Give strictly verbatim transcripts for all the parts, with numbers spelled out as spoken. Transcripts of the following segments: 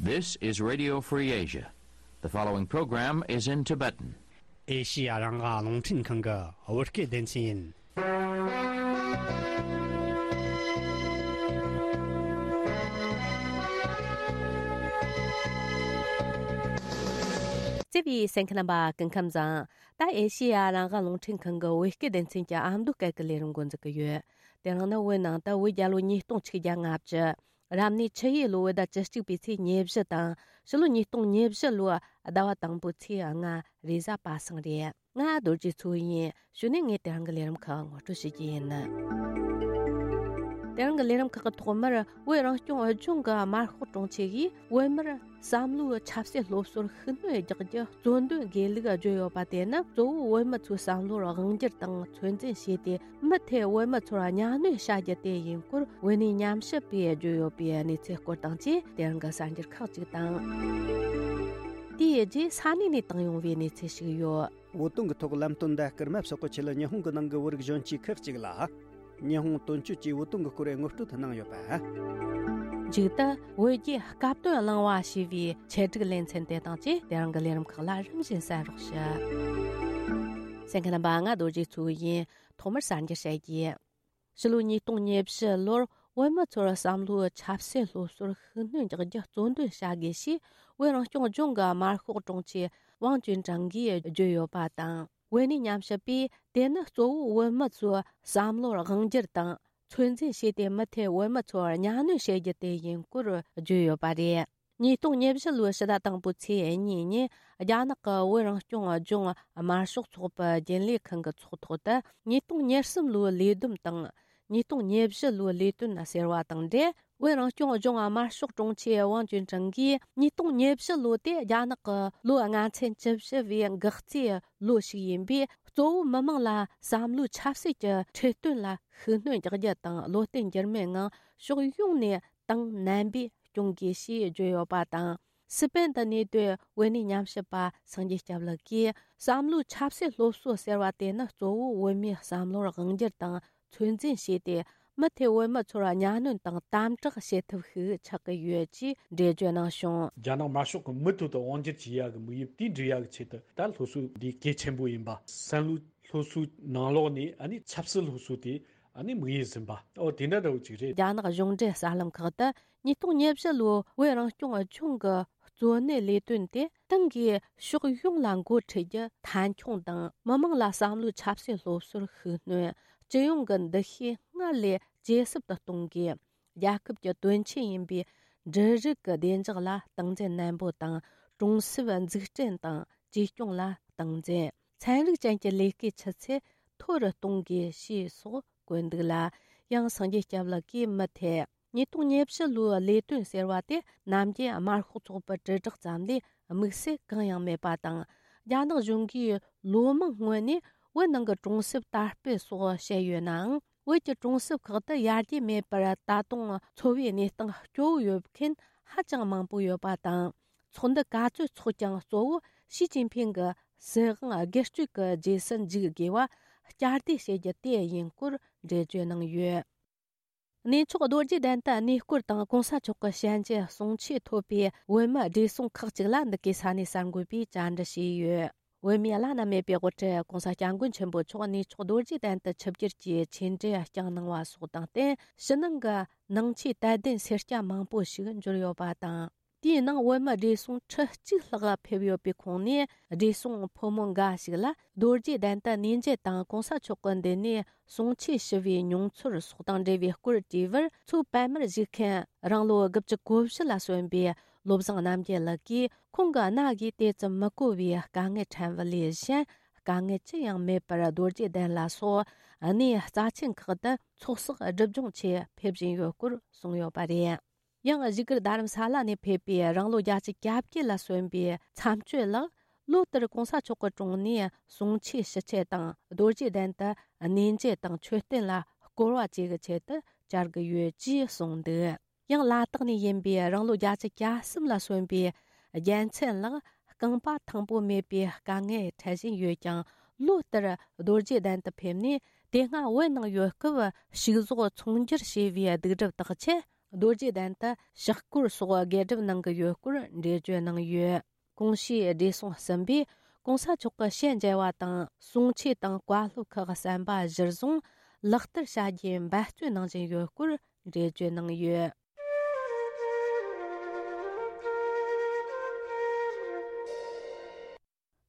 This is Radio Free Asia. The following program is in Tibetan. ཨེ་ཤི་ཡ་རང་དབང་རླུང་འཕྲིན་ཁང་གི་བོད་སྐད་སྡེ་ཚན་ཡིན། བརྩེ་བའི་གསན་མཁན་རྣམ་པ་སྐུ་ཁམས་བཟང་། ད་ཨེ་ཤི་ཡ་རང་དབང་རླུང་འཕྲིན་ཁང་གི་བོད་སྐད་སྡེ་ཚན་གྱི་ཨ་མདོ་སྐད་ཀྱི་ལས་རིམ་འགོ་འཛུགས་ཀྱི་ཡོད། དེ་རིང་ནི་བོད་ནང་དུ་བོད་རྒྱལ་ལོ་ཉིས་སྟོང་ཆིག་བརྒྱ་ལྔ་བཅུ། རབ་གནས་ཆུ་ཡོས་ལོ་བོད་ཟླ་བཅུ་གཅིག་པའི་ཚེས་ཉེར་བཞི་དང་། ཕྱི་ལོ་ཉིས་སྟོང་ཉེར་བཞི་ལོའི་ཟླ་བ་དང་པོའི་ཚེས་ལྔ། རེས་གཟའ་པ་སངས་རེད། ང་རྡོ་རྗེ་མཚོ་ཡིན། གཞུག་ནས་ངས་དེ་རིང་གི་ལས་རིམ་ཁག་ངོ་སྤྲོད་བྱེད་ཀྱི་ཡིན། དེ་རིང་གི་ལས་རིམ་ཁག་གི་ཐོག་མར་བོད་རང་སྐྱོང་ལྗོངས་ཀྱི་དམར་ཤོག་དྲུང་ཆེ་གིས་བོད་མིར་བསམ་བློའི་ཆབ་སྲིད་སློབ་གསོར་ཤུགས་སྣོན་རྒྱག་རྒྱུ་གཙོ་འདོན་དགོས་ལུགས་བརྗོད་ཡོད་པ་དེ་ནི་གཙོ་བོ་བོད་མི་ཚོའི་བསམ་བློར་དབང་བསྒྱུར་དང་ཚོད་འཛིན་བྱས་ཏེ། མུ་མཐུད་བོད་མི་ཚོར་གཉའ་གནོན་བྱ་རྒྱུ་དེ་ཡིན་སྐོར་བོད་གནས་ཉམས་ཞིབ་པས་བརྗོད་ཡོད་པའི་གནས་ཚུལ་སྐོར་དང་བཅས། དེ་རིང་གི་གསར་འགྱུར་ཁག་ཅིག་དང་། དེའི་རྗེས་ས་གནས་ནས་བཏང་ཡོང་བའི་གནས་ཚུལ་ཞིག་ཡོད། བོད་དོན་གྱི་ཐོག་ལམ་སྟོན་ཟླ་སྐར་མ་སོགས་ཀྱི་ཆེད་ལ་ཉི་ཧོང་གི་ནང་གི་བོད་རིགས་གཞོན་སྐྱེས་ཁག་ཅིག་ལ། ཉི་ཧོང་དོན་གཅོད་ཀྱིས་བོད་དོན་གྱི་སྐོར་ངོ་སྤྲོད་གནང་ཡོད་པ། མཇུག་ཏུ་བོད་རྒྱའི་སྐབས་དོན་གླེང་བ་ཞེས་པའི་ཆེད་སྒྲིག་ལེ་ཚན་དེ་དང་བཅས། དེ་རིང་གི་ལས་རིམ་ཁག་ལ་རིམ་བཞིན་གསན་རོགས་ཞུ། གསན་མཁན་རྣམ་པ། ང་རྡོ་རྗེ་མཚོ་ཡིན། ཐོག་མར་གསར་འགྱུར་བཤད་རྒྱུ། ཕྱི་ལོ་ཉིས་སྟོང་ཉེར་བཞི་ལོར་བོད་མི་ཚོར་བསམ་བློའི་ཆབ་སྲིད་སློབ་གསོར་ཤུགས་སྣོན་རྒྱག་རྒྱུ་གཙོ་འདོན་བྱ་དགོས་ཞེས་བོད་རང་སྐྱོང་ལྗོངས་ཀྱི་དམར་ཤོག་དྲུང་ཆེ་ཝང་ཅུན་ཀྲང་གིས་བརྗོད་ཡོད་པ་དང་། བོད་གནས་ཉམས་ཞིབ་པས་དེ་ནི་གཙོ་བོ་བོད་མི་ཚོའི་བསམ་བློར་དབང་བསྒྱུར་དང་ཚོད་འཛིན་བྱས་ཏེ། མུ་མཐུད་བོད་མི་ཚོར་གཉའ་གནོན་བྱེད་རྒྱུ་དེ་ཡིན་སྐོར་བརྗོད་ཡོད་པ་རེད། ཉིས་སྟོང་ཉེར་བཞི་ལོའི་ཕྱི་ཟླ་དང་པོའི་ཚེས་གཉིས་ཉིན། རྒྱ་ནག་གི་བོད་རང་སྐྱོང་ལྗོངས་དམར་ཤོག་ཚོགས་པའི་རྒྱུན་ལས་ཁང་གི་ཚོགས་ཐོག་ཏུ། ཉིས་སྟོང་ཉེར་གསུམ་ལོའི་ལས་བསྡོམས་དང་། ཉིས་སྟོང་ཉེར་བཞི་ལོའི་ལས་དོན་ཟེར་བ་དང་འབྲེལ། བོད་རང་སྐྱོང་ལྗོངས་དམར་ཤོག་དྲུང་ཆེ་ཝང་ཅུན་ཀྲང་གིས། ཉིས་སྟོང་ཉེར་བཞི་ལོ་དེ་རྒྱ་ནག་གི་ལོ་ལྔ་ཚན་བཅུ་བཞི་བའི་འགག་རྩའི་ལོ་ཞིག་ཡིན་པས། གཙོ་བོ་མི་དམངས་ལ་བསམ་བློའི་ཆབ་སྲིད་ཀྱི་ཁྲིད་སྟོན་ལ་ཤུགས་སྣོན་རྒྱག་རྒྱུ་དང་། བློ་བརྟན་འགྱུར་མེད་ངང་ཕྱོགས་ཡོངས་ནས་ཏང་རྣམ་པས་སྐྱོང་དགོས་ཞེས་བརྗོད་ཡོད་པ་དང་། སི་པན་དུ་གནས་སྡོད་བོད་གནས་ཉམས་ཞིབ་པ་སངས་རྒྱས་སྐྱབས་ལགས་ཀྱིས། བསམ་བློའི་ཆབ་སྲིད་སློབ་གསོ་ཟེར་བ་དེ་ནི་གཙོ་བོ་བོད་མིའི་བསམ་བློར་དབང་བསྒྱུར་དང་ཚོད་འཛིན་བྱས་ཏེ། མུ་མཐུད་བོད་མི་ཚོར་གཉའ་གནོན་དང་དམ་དྲག་བྱེད་ཐབས་ཤིག་ཆགས་ཀྱི་ཡོད་ཅེས་འགྲེལ་བརྗོད་གནང་བྱུང་། རྒྱ་ནག་དམར་ཤོག་གི་མུ་མཐུད་དུ་དབང་བསྒྱུར་བྱེད་ཡག་གི་དམིགས་ཡུལ་དེ་འགྲུབ་ཡག་གི་ཆེད་དུ། ད་སློབ་གསོ་འདི་གལ་ཆེན་པོ་ཡིན་པ། བསམ་བློའི་སློབ་གསོའི་ནང་ལོགས་ནས་ཨ་ནི་ཆབ་སྲིད་སློབ་གསོ་དེ་ཨ་ནི་དམིགས་ཡུལ་ཟིན་པ། ཨོ་དེ་འདྲ་འདྲ་བོ་ཅིག་རེད། རྒྱ་ནག་གཞུང་འབྲེལ་གསར་ལམ་ཁག་ཏུ། ཉིས་སྟོང་ཉེར་བཞི་ལོའི་བོད་རང་སྐྱོང་ལྗོངས་ཀྱི་གཙོ་གནད་ལས་དོན་དེ། ཏང་གིས་ཕྱོགས་ཡོངས་ལ་འགོ་ཁྲིད་རྒྱུ་མཐའ་འཁྱོངས་དང་། མི་དམངས་ལ་བསམ་བློའི་ཆབ་སྲིད་སློབ་གསོར་ཤུགས་སྣོན། སྤྱི་ཡོངས་ཀྱི་འདུ་ཤེས་སྔར་ལས་ཇེ་ཟབ་ཏུ་གཏོང་དགོས། རྒྱལ་ཁབ་ཀྱི་དོན་ཆེན་ཡིན་པའི་འབྲུ་རིགས་ཀྱི་བདེ་འཇགས་ལ་སྟངས་འཛིན་ནན་པོ་དང་། གྲོང་གསེབ་འཛུགས་སྐྲུན་དང་བཅོས་སྐྱོང་ལ་སྟངས་འཛིན། ཚན་རིག་ཅན་གྱི་ལས་ཀའི་ཆུ་ཚད་མཐོ་རུ་གཏོང་དགོས་ཞེས་སོགས་བཀོད་འདུག་ལ། ཡང་སངས་རྒྱས་སྐྱབས་ལགས་ཀྱིས་མུ་མཐུད། ཉིས་སྟོང་ཉེར་བཞི་ལོའི་ལས་དོན་ཟེར་བ་དེ་ནམ་རྒྱུན་དམར་ཤོག་ཚོགས་པའི་དྲིལ་བསྒྲགས་ཙམ་ལས་དམིགས་བསལ་གང་ཡང་མེད་པ་དང་། རྒྱ་ནག་གཞུང་གིས་ལོ་མང་སྔོན་ནས་བོད་ནང་གི་གྲོང་གསེབ་དར་སྤེལ་སོགས་བཤད་ཡོད་ནའང་། བོད་ཀྱི་གྲོང་གསེབ་ཁག་ཏུ་ཡར་རྒྱས་མེད་པར་ད་དུང་འཚོ་བའི་གནས་སྟངས་སྐྱོ་བོ་ཡོད་མཁན་ཧ་ཅང་མང་པོ་ཡོད་པ་དང་། ཚོགས་འདུ་ག་ཚོད་འཚོགས་ཀྱང་གཙོ་བོ་ཞི་ཅིན་ཕིང་གི་སྲིད་དབང་སྒེར་གཅོད་ཀྱི་རྗེས་སུ་འཇུག་དགོས་པ་བསྐྱར་ཟློས་བྱེད་རྒྱུ་དེ་ཡིན་སྐོར་འགྲེལ་བརྗོད་གནང་ཡོད། གནས་མཆོག་རྡོ་རྗེ་གདན་དུ་གནས་སྐོར་དང་གོང་ས་མཆོག་གི་ཞལ་མཇལ་གསུང་ཆོས་ཐོབ་པའི་བོད་མི་བགྲེས་སོང་ཁག་ཅིག་ལ་འདི་གའི་ས་གནས་གསར་འགོད་པས་བཅར་འདྲི་བྱས་ཡོད། བོད་མིའི་བླ་ན་མེད་པའི་དབུ་ཁྲིད་གོང་ས་སྐྱབས་མགོན་ཆེན་པོ་མཆོག་གནས་མཆོག་རྡོ་རྗེ་གདན་དུ་ཆིབས་བསྒྱུར་གྱིས་ཆོས་འབྲེལ་བསྐྱངས་གནང་བ་སོགས་དང་བསྟུན། ཕྱི་ནང་གི་ནང་ཆོས་དད་ལྡན་སེར་སྐྱ་མང་པོ་ཞིག་འབྱོར་ཡོད་པ་དང་། དེའི་ནང་བོད་མི་བགྲེས་སོང་ཁྲི་གཅིག་ལྷག་ཕེབས་ཡོད་པའི་ཁོངས་ནས། བགྲེས་སོང་ཕོ་མོ་འགའ་ཞིག་ལ་རྡོ་རྗེ་གདན་དུ་གནས་མཇལ་དང་གོང་ས་མཆོག་གི་མདུན་ནས་གསུང་ཆོས་ཞུ་བའི་མྱོང་ཚོར་སོགས་དང་འབྲེལ་བའི་སྐོར་དྲིས་པར། མཚོ་པད་མར་བཞུགས་མཁན་རང་ལོ་དགུ་བཅུ་གོ་བཞི་ལ་སོན་པའི་བློ་བཟང་རྣམ་རྒྱལ་ལགས་ཀྱིས། ཁོང་གི་རྣ་གིས་དེ་ཙམ་མི་གོ་བའི་དཀའ་ངལ་འཕྲད་པ་ལས་གཞན། དཀའ་ངལ་ཅི་ཡང་མེད་པར་རྡོ་རྗེ་གདན་ལ་སོགས་གནས་རྩ་ཆེན་ཁག་ཏུ་ཚོགས་བསགས་སྒྲིབ་སྦྱོང་ཆེད་ཕེབས་བཞིན་ཡོད་སྐོར་གསུངས་ཡོད་པ་རེད། ཡང་བཞུགས་སྒར་རྡ་རམ་ས་ལ་ནས་ཕེབས་པའི་རང་ལོ་བརྒྱད་ཅུ་གྱ་བརྒྱད་ལ་སོན་པའི་མཚམས་གཅོད་ལགས། ལོ་ལྟར་གོང་ས་མཆོག་གི་དྲུང་ནས་གསུང་ཆོས་ཞུ་ཆེད་དང་། རྡོ་རྗེ་གདན་དུ་གནས་མཇལ་དང་མཆོད་རྟེན་ལ་སྐོར་བ་བཅས་ཀྱི་ཆེད་དུ་བཅར་གྱི་ཡོད་ཅེས་གསུངས་འདུག། ཡང་ལ་དྭགས་ནས་ཡིན་པའི་རང་ལོ་བརྒྱད་ཅུ་གྱ་གསུམ་ལ་སོན་པའི་རྒྱལ་མཚན་ལགས། རྐང་པ་ཐང་པོ་མེད་པའི་དཀའ་ངལ་འཕྲད་བཞིན་ཡོད་ཀྱང་། ལོ་ལྟར་རྡོ་རྗེ་གདན་དུ་ཕེབས་ནས། དེ་སྔ་བོད་ནང་ཡོད་སྐབས་ཕྱུགས་ཟོག་ཚོང་སྒྱུར་བྱས་པའི་སྡིག་སྒྲིབ་དག་ཆེད། རྡོ་རྗེ་གདན་དུ་ཕྱག་སྐོར་སོགས་དགེ་སྒྲུབ་གནང་གི་ཡོད་སྐོར་འགྲེལ་བརྗོད་གནང་ཡོད། གོང་ཞུས་བགྲེས་སོང་གསུམ་པས་གོང་ས་མཆོག་གི་ཞལ་མཇལ་བ་དང་གསུང་ཆོས་དང་བཀའ་སློབ་ཁག་གསན་པ་གཞིར་བཟུང་ལག་བསྟར་བྱ་རྒྱུའི་འབད་བརྩོན་གནང་བཞིན་ཡོད་སྐོར་འགྲེལ་བརྗོད་གནང་ཡོད།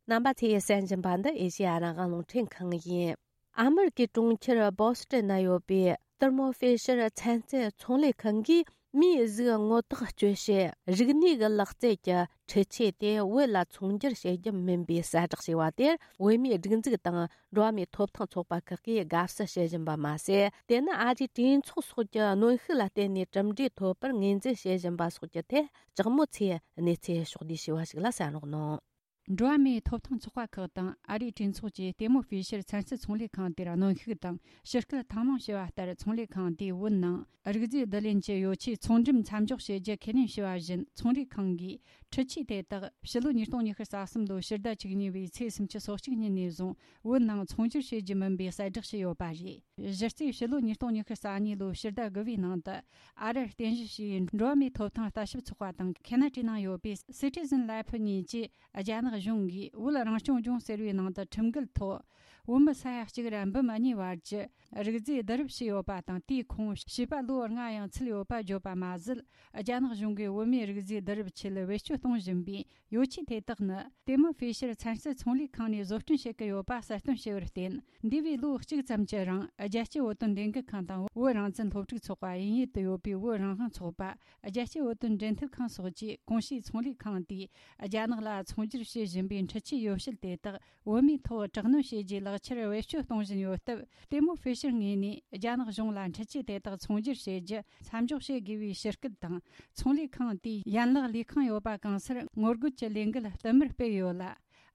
རྣམ་པ་ཚོས་གསན་བཞིན་པ་འདི་ཨེ་ཤེ་ཡ་རང་དབང་རླུང་འཕྲིན་ཁང་ཡིན། ཨ་མེ་རི་ཀའི་གྲོང་ཁྱེར་བོ་སི་ཏན་ན་ཡོད་པའི་ཐར་མོ་ཧྥེ་ཤར་ཚན་རྩལ་ཚོང་ལས་ཁང་གིས་མིའི་གཟུགས་ངོ་ཐག་གཅོད་བྱེད་རིག་གནས་ཀྱི་ལག་རྩལ་གྱི་འཕྲུལ་ཆས་དེ་བོད་ལ་ཚོང་སྒྱུར་བྱེད་རྒྱུ་མིན་པའི་གསལ་བསྒྲགས་བྱས་པ་དེར། བོད་མིའི་སྒྲིག་འཛུགས་དང་འགྲོ་བ་མིའི་ཐོབ་ཐང་ཚོགས་པ་ཁག་གིས་དགའ་བསུ་བྱེད་བཞིན་པ་མ་ཟད། དེ་ནི་ཨ་རིའི་གྲོས་ཚོགས་སོགས་ཀྱི་གནོན་ཤུགས་ལ་བརྟེན་ནས་གྲུབ་འབྲས་ཐོབ་པར་ངོས་འཛིན་བྱེད་བཞིན་པ་སོགས་ཀྱི་ཐད་ལྕགས་མོ་ཚོས་གནས་ཚུལ་ཕྱོགས་བསྡུས་བྱས་པ་ཞིག་ལ་གསན་རོགས་གནང་། འགྲོ་བ་མིའི་ཐོབ་ཐང་ཚོགས་པ་ཁག་དང་ཨ་རིའི་གྲོས་ཚོགས་ཀྱིས་ལྟད་མོ་ཧྥེ་ཤར་ཚན་རྩལ་ཚོང་ལས་ཁང་དེར་གནོན་ཤུགས་དང་ཞུ་སྐུལ་ཐེངས་མང་བྱས་པ་ལྟར། ཚོང་ལས་ཁང་དེས་བོད་ནང་རིག་རྫས་བསྡུ་ལེན་གྱི་ཡོ་ཆས་ཚོང་འགྲེམས་མཚམས་འཇོག་བྱེད་རྒྱུ་ཁས་ལེན་བྱས་པ་བཞིན། ཚོང་ལས་ཁང་གིས་འཕྲུལ་ཆས་དེ་དག་ཕྱི་ལོ་ཉིས་སྟོང་ཉི་ཤུ་རྩ་གསུམ་ལོའི་ཕྱི་ཟླ་བཅུ་གཉིས་པའི་ཚེས་སུམ་ཅུ་སོ་གཅིག་ཉིན་ནས་བཟུང་བོད་ནང་ཚོང་སྒྱུར་བྱེད་རྒྱུ་མིན་པའི་གསལ་བསྒྲགས་བྱས་ཡོད་པ་རེད། གཞི་རྩའི་ཕྱི་ལོ་ཉིས་སྟོང་ཉི་ཤུ་རྩ་གཉིས་ལོའི་ཕྱི་ཟླ་དགུ་པའི་ནང་དུ། ཨ་རིར་རྟེན་གཞི་བྱས་པའི་འགྲོ་བ་མིའི་ཐོབ་ཐང་ལྟ་ཞིབ་ཚོགས་པ་དང་ཁེ་ན་ཌའི་ནང་ཡོད་པའི་Citizen Lab གཉིས་ཀྱིས། རྒྱ་ནག་གཞུང་གིས་བོད་རང་སྐྱོང་ལྗོངས་ཟེར་བའི་ནང་དུ་ཁྲིམས་འགལ་ཐོག་བོད་མི་ས་ཡ་གཅིག་ར་འབུམ་གཉིས་བར་གྱི་རིག་རྫས་བསྡུ་རུབ་བྱས་ཡོད་པ་དང་། དེའི་ཁོངས་བྱིས་པ་ལོ་ལྔ་ཡང་ཚུད་ཡོད་པ་བརྗོད་པ་མ་ཟད། རྒྱ་ནག་གཞུང་གིས་བོད་མིའི་རིག་རྫས་བསྡུ་རུབ་ཆེད་བེད་སྤྱོད་གཏོང་བཞིན་པའི་ཡོ་ཆས་དེ་དག་ནི་ལྟད་མོ་ཧྥེ་ཤར་ཚན་རྩལ་ཚོང་ལས་ཁང་ནས་བཟོ་སྐྲུན་བྱེད་ཀྱི་ཡོད་པ་གསལ་སྟོན་བྱས་པར་བརྟེན། འདས་པའི་ལོ་གཅིག་ཙམ་གྱི་རིང་རྒྱལ་སྤྱིའི་བོད་དོན་ལས་འགུལ་ཁང་དང་བོད་རང་བཙན་སློབ་ཕྲུག་ཚོགས་པ། དབྱིན་ཡུལ་དུ་ཡོད་པའི་བོད་རང་དབང་ཚོགས་པ། རྒྱལ་སྤྱིའི་བོད་དོན་འབྲེལ་མཐུད་ཁང་སོགས་ཀྱིས་གོང་ཞུས་ཚོང་ལས་ཁང་དེས་རྒྱ་ནག་ལ་ཚོང་སྒྱུར་བྱེད་བཞིན་པའི་འཕྲུལ་ཆས་ཡོ་བྱད་དེ་དག་བོད་མིའི་ཐོག་དྲག་གནོན་བྱས་རྗེས་ལག་ཁྱེར་བེད་སྤྱོད་གཏོང་བཞིན་ཡོད་སྟབས། ལྟད་མོ་ཧྥེ་ཤར་ངོས་ནས་རྒྱ་ནག་གཞུང་ལ་འཕྲུལ་ཆས་དེ་དག་ཚོང་སྒྱུར་བྱེད་རྒྱུ་མཚམས་འཇོག་བྱེད་དགོས་པའི་ཞུ་སྐུལ་དང་། ཚོང་ལས་ཁང་དེའི་ཡན་ལག་ལས་ཁང་ཡོད་པ་གང་སར་ངོ་རྒོལ་གྱི་ལས་འགུལ་བསྟུད་མར་སྤེལ་ཡོད་ལ།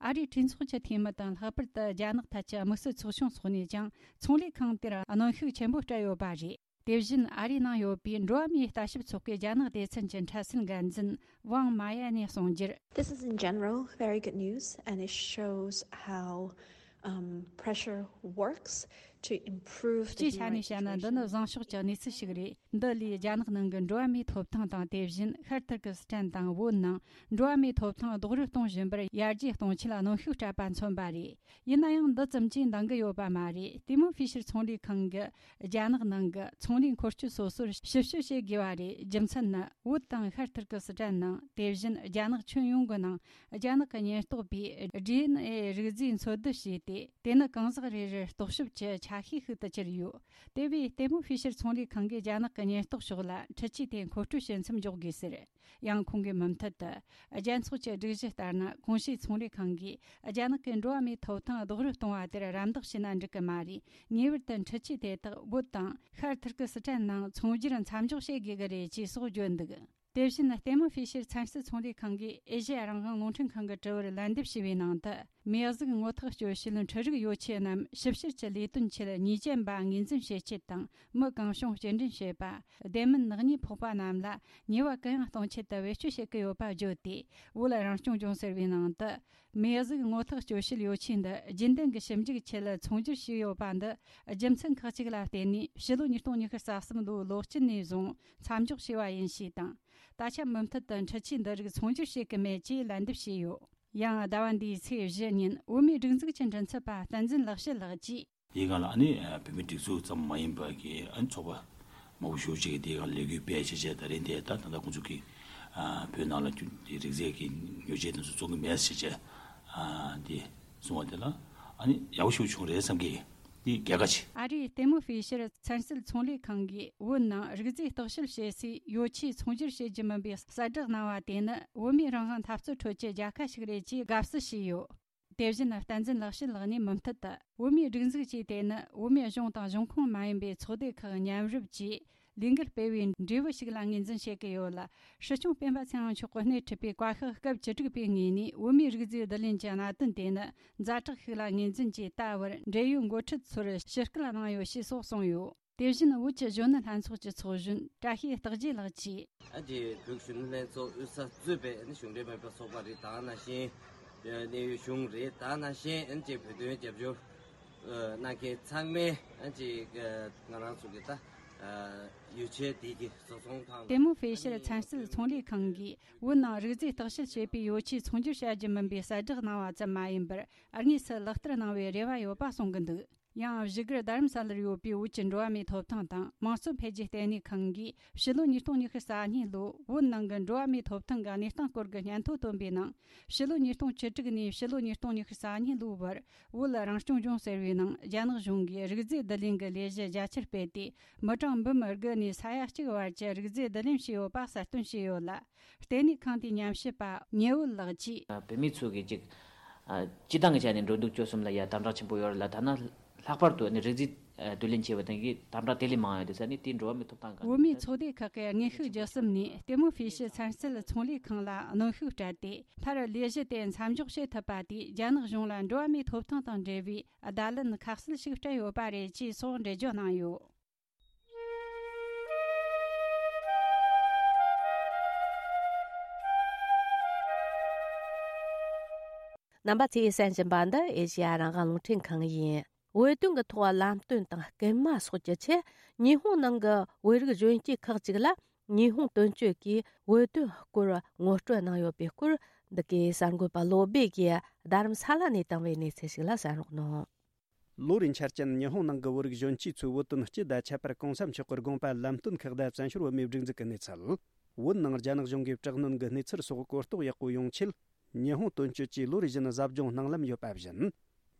ཨ་རིའི་གྲོས་ཚོགས་ཀྱི་འཐུས་མི་དང་། ལྷག་པར་དུ་རྒྱ་ནག་ཐད་ཀྱི་དམིགས་བསལ་ཚོགས་ཆུང་སོགས་ནས་ཀྱང་ཚོང་ལས་ཁང་དེར་གནོན་ཤུགས་ཆེན་པོ་སྤྲད་ཡོད་པ་རེད། དེ་བཞིན་ཨ་རིའི་ནང་ཡོད་པའི་འགྲོ་བ་མིའི་ལྟ་ཞིབ་ཚོགས་པའི་རྒྱ་ནག་སྡེ་ཚན་གྱི་འཕྲལ་སེལ་འགན་འཛིན་ཝང་མ་ཡ་ནས་གསུངས་རྒྱུར། This is in general very good news, and it shows how, um, pressure works to improve the སྤྱིའི་ཆ་ནས་བཤད་ན། འདི་ནི་བཟང་ཕྱོགས་ཀྱི་གནས་ཚུལ་ཞིག་རེད། འདི་ལས་རྒྱ་ནག་ནང་གི་འགྲོ་བ་མིའི་ཐོབ་ཐང་དང་། དེ་བཞིན་ཤར་ཐུར་ཀི་སི་ཐན་དང་བོད་ནང་འགྲོ་བ་མིའི་ཐོབ་ཐང་རྡོག་རོལ་གཏོང་བཞིན་པར་ཡར་རྒྱས་གཏོང་ཆེད་གནོན་ཤུགས་སྤྲད་པ་མཚོན་པ་རེད། ཡིན་ན་ཡང་འདི་ཙམ་གྱིས་འདང་གི་ཡོད་པ་མ་རེད། ལྟད་མོ་ཧྥི་ཤར་ཚོང་ལས་ཁང་གིས་རྒྱ་ནག་ནང་གི་ཚོང་ལས་འཁོར་སྐྱོད་སོ་སོར་ཞིབ་དཔྱོད་བྱེད་དགོས་པ་རེད། རྒྱུ་མཚན་ནི། བོད་དང་ཤར་ཐུར་ཀི་སི་ཐན་ནང་། དེ་བཞིན་རྒྱ་ནག་ཁྱོན་ཡོངས་ཀྱི་ནང་རྒྱ་ནག་གི་ཉེན་རྟོག་པས་ཌི་ཨེན་ཨེ་རིག་རྫས་འཚོལ་བསྡུ་བྱས་ཏེ། དེ་ནི་གང་ཟག་རེ་རེར་རྟོག་ཞིབ་ཀྱི་ཆ་ཤས་ཤིག་ཏུ་གྱུར་ཡོད། དེ་བས་ལྟད་མོ་ཧྥི་ཤར་ཚོང་ལས་ཁང་གིས་རྒྱ་ནག་གི་ཉེན་རྟོག་ཕྱོགས་ལ་འཕྲུལ་ཆས་དེ་མཁོ་སྤྲོད་བྱེད་མཚམས་འཇོག་དགོས་ཟེར། ཡང་ཁོང་གིས་མུ་མཐུད་དུ། རྒྱལ་ཚོགས་ཀྱི་སྒྲིག་གཞི་ལྟར་ན། གོང་ཞུས་ཚོང་ལས་ཁང་གིས་རྒྱ་ནག་གི་འགྲོ་བ་མིའི་ཐོབ་ཐང་རྡོག་རོལ་གཏོང་བ་དེར་རམ་འདེགས་བྱས་ན་འགྲིག་གི་མ་རེད། ངེས་པར་དུ་འཕྲུལ་ཆས་དེ་དག་བོད་དང་ཤར་ཐུར་ཀི་སི་ཐན་ནང་ཚོང་སྒྱུར་མཚམས་འཇོག་བྱེད་དགོས་ཀྱི་རེད་ཅེས་སོགས་བརྗོད་འདུག། དེ་བཞིན་ལྟད་མོ་ཧྥི་ཤར་ཚན་རྩལ་ཚོང་ལས་ཁང་གིས་ཨེ་ཤེ་ཡ་རང་དབང་རླུང་འཕྲིན་ཁང་གི་དྲི་བར་ལན་འདེབས་ཞུས་པའི་ནང་དུ། མིའི་གཟུགས་ངོ་ཐག་གཅོད་བྱེད་འཕྲུལ་རིག་ཡོ་ཆས་རྣམས་ཞིབ་བཤེར་གྱི་ལས་དོན་ཆེད་ཉེས་ཅན་པ་ངོས་འཛིན་བྱེད་ཆེད་དང་། མི་གང་བྱུང་སྐྱེལ་འདྲེན་བྱེད་པ། བདེ་སྨོན་ནག་ཉེས་ཕོག་པ་རྣམས་ལ་ཉེས་པ་གུ་ཡངས་གཏོང་ཆེད་དུ་བེད་སྤྱོད་བྱེད་ཀྱི་ཡོད་པ་བརྗོད་དེ། བོད་རང་སྐྱོང་ལྗོངས་ཟེར་བའི་ནང་དུ། མིའི་གཟུགས་ངོ་ཐག་གཅོད་བྱེད་ཡོ་ཆས་འདི་རྒྱུན་ལྡན་གྱི་ཞིབ་འཇུག་ཆེད་ཚོང་སྒྱུར་བྱས་ཡོད་པ་འདི། རྒྱུ་མཚན་ཁག་ཅིག་ལ་བརྟེན་ནས་ཕྱི་ལོ་ཉིས་སྟོང་ཉི་ཤུ་རྩ་གསུམ་ལོའི་ལོ་དཀྱིལ་ནས་བཟུང་མཚམས་འཇོག་བྱས་པ་ཡིན་ཞེས་དང་། ད་ཆ་མུ་མཐུད་དུ་འཕྲུལ་ཆས་འདི་རིགས་ཚོང་སྒྱུར་བྱེད་ཀྱི་མེད་ཅེས་ལན་འདེབས་བྱས་ཡོད། ཡང་ཟླ་བ་འདིའི་ཚེས་བཞི་ཉིན་བོད་མིའི་སྒྲིག་འཛུགས་ཀྱི་མགྲིན་ཚབ་པ་བསྟན་འཛིན་ལེགས་བཤད་ལགས་ཀྱིས། དེའི་སྒང་ལ་ཨ་ནི་བོད་མིའི་སྒྲིག་འཛུགས་ཙམ་མ་ཡིན་པ་གི་ཨ་ནི་ཚོགས་པ་མང་པོ་ཞེ་པོ་ཅིག་གིས་དེའི་སྒང་ལ་ལས་འགུལ་སྤེལ་བྱས་བྱས། ད་རིང་དེ་ད་ད་ལྟ་ཁོང་ཚོ་གིས་ཨ་བོད་ནང་ལ་རྒྱུ་དེ་རིག་རྩལ་གྱི་ཡོ་བྱད་དེ་ཚོ་བཙོང་གི་མེད་ཟེར་བྱས་ཨ་དེ་གསུངས་པ་དེ་ལ་ཨ་ནི་ཡག་པོ་ཞེ་པོ་བྱུང་རེད་བསམ་གི། དེ་རྒྱལ་ཁ་ཆེ། ཨ་རིའི་ལྟད་མོ་ཧྥི་ཤར་ཚན་རྩལ་ཚོང་ལས་ཁང་གིས་བོད་ནང་རིག་རྫས་བརྟག་དཔྱད་བྱེད་སའི་ཡོ་ཆས་ཚོང་སྒྱུར་བྱེད་རྒྱུ་མིན་པའི་གསལ་བསྒྲགས་གནང་བ་དེ་ནི་བོད་མིའི་རང་དབང་འཐབ་རྩོད་ཁྲོད་ཀྱི་རྒྱལ་ཁ་ཞིག་རེད་ཅེས་དགའ་བསུ་བྱས་ཡོད། དེ་བཞིན་བསྟན་འཛིན་ལེགས་བཤད་ལགས་ནས་མུ་མཐུད་དུ། བོད་མིའི་སྒྲིག་འཛུགས་ཀྱིས་དེ་ནི་བོད་མིའི་གཞུང་དང་གཞུང་ཁོངས་མ་ཡིན་པའི་ཚོགས་སྡེ་ཁག་མཉམ་རུབ་ཀྱིས་ལས་འགུལ་སྤེལ་བའི་འབྲས་བུ་ཞིག་ལ་ངོས་འཛིན་བྱེད་ཀྱི་ཡོད་ལ། སྲིད་སྐྱོང་སྤེན་པ་ཚེ་དབང་མཆོག་གིས་སྣེ་ཁྲིད་པའི་བཀའ་ཤག་སྐབས་བཅུ་དྲུག་པའི་ངོས་ནས་བོད་མིའི་རིག་རྫས་བསྡུ་ལེན་གྱི་གནད་དོན་དེ་ནི་ཛ་དྲག་ཞིག་ལ་ངོས་འཛིན་གྱིས། ད་བར་འབྲེལ་ཡོད་འགོ་ཁྲིད་ཚོར་ཞུ་སྐུལ་གནང་ཡོད་ཞེས་སོགས་གསུངས་ཡོད། དེ་བཞིན་བོད་ཀྱི་གཞོན་ནུ་ལྷན་ཚོགས་ཀྱི་ཚོགས་གཞོན་བཀྲ་ཤིས་རྟག་རྒྱས་ལགས་ཀྱིས། ཨ་ཅེ་བོད་གཞོན་ནུ་ལྷན་ཚོགས་དབུས་ས་གཙོས་པའི་ཨ་ནི་གཞུང་འབྲེལ་མིན་པའི་ཚོགས་པ་རེད། ད་ནང་བཞིན་གནད་ཡོད་གཞུང་རེད། ད་ནང་བཞིན་ཨ་ཅེ་བོད་དོན་རྒྱབ་སྐྱོར་གནང་མཁན་ཚང་མས་ཨ་ཅེ་ང་རང་ཚོ་གི་ད་ ཡོ་ཆས་དེ་གི་བཟོ་ཚོང་དང་། ཏེ་མོ་ཧྥེ་ཤར་ཚན་རྩལ་ཚོང་ལས་ཁང་གིས་བོད་ནང་རིག་རྫས་བརྟག་དཔྱད་བྱེད་པའི་ཡོ་ཆས་ཚོང་སྒྱུར་བྱ་རྒྱུ་མིན་པའི་གསལ་བསྒྲགས་གནང་བ་ཙམ་མ་ཡིན་པར། དངོས་སུ་ལག་བསྟར་གནང་བའི་རེ་བ་ཡོད་པ་གསུང་གི་འདུག། ཡང་བཞུགས་སྒར་རྡ་རམ་ས་ལར་ཡོད་པའི་བོད་ཀྱི་འགྲོ་བ་མིའི་ཐོབ་ཐང་དང་དམངས་གཙོ་འཕེལ་རྒྱས་ལྟེ་གནས་ཁང་གིས་ཕྱི་ལོ་ཉིས་སྟོང་ཉི་ཤུ་རྩ་གཉིས་ལོའི་བོད་ནང་གི་འགྲོ་བ་མིའི་ཐོབ་ཐང་གི་གནས་སྟངས་སྐོར་གྱི་སྙན་ཐོ་བཏོན་པའི་ནང་། ཕྱི་ལོ་ཉིས་སྟོང་བཅུ་དྲུག་ནས་ཕྱི་ལོ་ཉིས་སྟོང་ཉི་ཤུ་རྩ་གཉིས་ལོའི་བར་བོད་རང་སྐྱོང་ལྗོངས་ཟེར་བའི་ནང་རྒྱ་ནག་གཞུང་གིས་རིག་རྫས་བསྡུ་ལེན་གྱི་ལས་གཞི་རྒྱ་ཆེར་སྤེལ་ཏེ། མི་གྲངས་འབུམ་དགུ་ནས་ས་ཡ་གཅིག་བར་གྱི་རིག་རྫས་བསྡུ་ལེན་བྱས་ཡོད་པ་གསལ་སྟོན་བྱས་ཡོད་ལ། ལྟེ་གནས་ཁང་དེའི་ཉམས་ཞིབ་པ་ཉེ་བོད་ལགས་ཀྱིས། བོད་མི་ཚོ་གིས་ཅིག་ཨ། སྤྱི་བཏང་གི་ཆ་ནས་འགྲོ་འདུག་སྤྱོད་གསུམ་ལ་ཡ་དམ་དྲག་ཆེན་པོ་ཡོད་རེད་ལ། ཐ་ན་ལྷག་པར་དུ་ནི་རིག་རྫས་བསྡུ་ལེན་བྱས་པ་དེ་གི་དམ་དྲག་དེ་ལས་མང་ཡོད་དེ་ས་ནི་དེའི་འགྲོ་བ་མིའི་ཐོབ་ཐང་གང་། བོད་མིའི་ཚོགས་སྡེ་ཁག་གི་དངོས་ཤུགས་བརྒྱུད་གསུམ་ནས་ལྟད་མོ་ཧྥེ་ཤི་ཚན་རྩལ་ཚོང་ལས་ཁང་ལ་གནོན་ཤུགས་སྤྲད་དེ། མཐར་ལས་གཞི་དེ་མཚམས་འཇོག་བྱེད་ཐུབ་པ་དེས་རྒྱ་ནག་གཞུང་ལ་འགྲོ་བ་མིའི་ཐོབ་ཐང་དང་འབྲེལ་བའི་བརྡ་ལན་ཁ་གསལ་ཞིག་སྤྲད་ཡོད་པ་རེད་ཅེས་སོགས་འགྲེལ་བརྗོད་གནང་ཡོད། རྣམ་པ་ཚོས་གསན་བཞིན་པ་འདི་ཨེ་ཤེ་ཡ་རང་དབང་རླུང་འཕྲིན་ཁང་ཡིན། བོད་དོན་གྱི་ཐོག་ལམ་སྟོན་དང་སྐུལ་མ་སོགས་ཀྱི་ཆེད། ཉི་ཧོང་ནང་གི་བོད་རིགས་གཞོན་སྐྱེས་ཁག་ཅིག་ལ་ཉི་ཧོང་དོན་གཅོད་ཀྱིས་བོད་དོན་སྐོར་ངོ་སྤྲོད་གནང་ཡོད་པའི་སྐོར། འདི་གའི་གསར་འགོད་པ་བློ་སྦེ་གིས་རྡ་རམ་ས་ལ་ནས་བཏང་བའི་གནས་ཚུལ་ཞིག་ལ་གསན་རོགས་གནང་། ལོ་རེའི་འཆར་ཅན་ཉི་ཧོང་ནང་གི་བོད་རིགས་གཞོན་སྐྱེས་ཚོའི་བོད་དོན་སྤྱི་དང་ཁྱད་པར་གོང་ས་མཆོག་གི་དགོངས་པ་ལམ་སྟོན་ཁག་དང་བཙན་བྱོལ་བོད་མིའི་སྒྲིག་འཛུགས་ཀྱི་གནས་ཚུལ། བོད་ནང་རྒྱ་ནག་གཞུང་གིས་དྲག་གནོན་གྱི་གནས་ཚུལ་སོགས་གོ་རྟོགས་ཡག་པོ་ཡོང་ཆེད། ཉི་ཧོང་དོན་གཅོད་ཀྱིས་ལོ་རེ་བཞིན་གཟབ་སྦྱོང་གནང་ལམ་ཡོད་པ་བཞིན།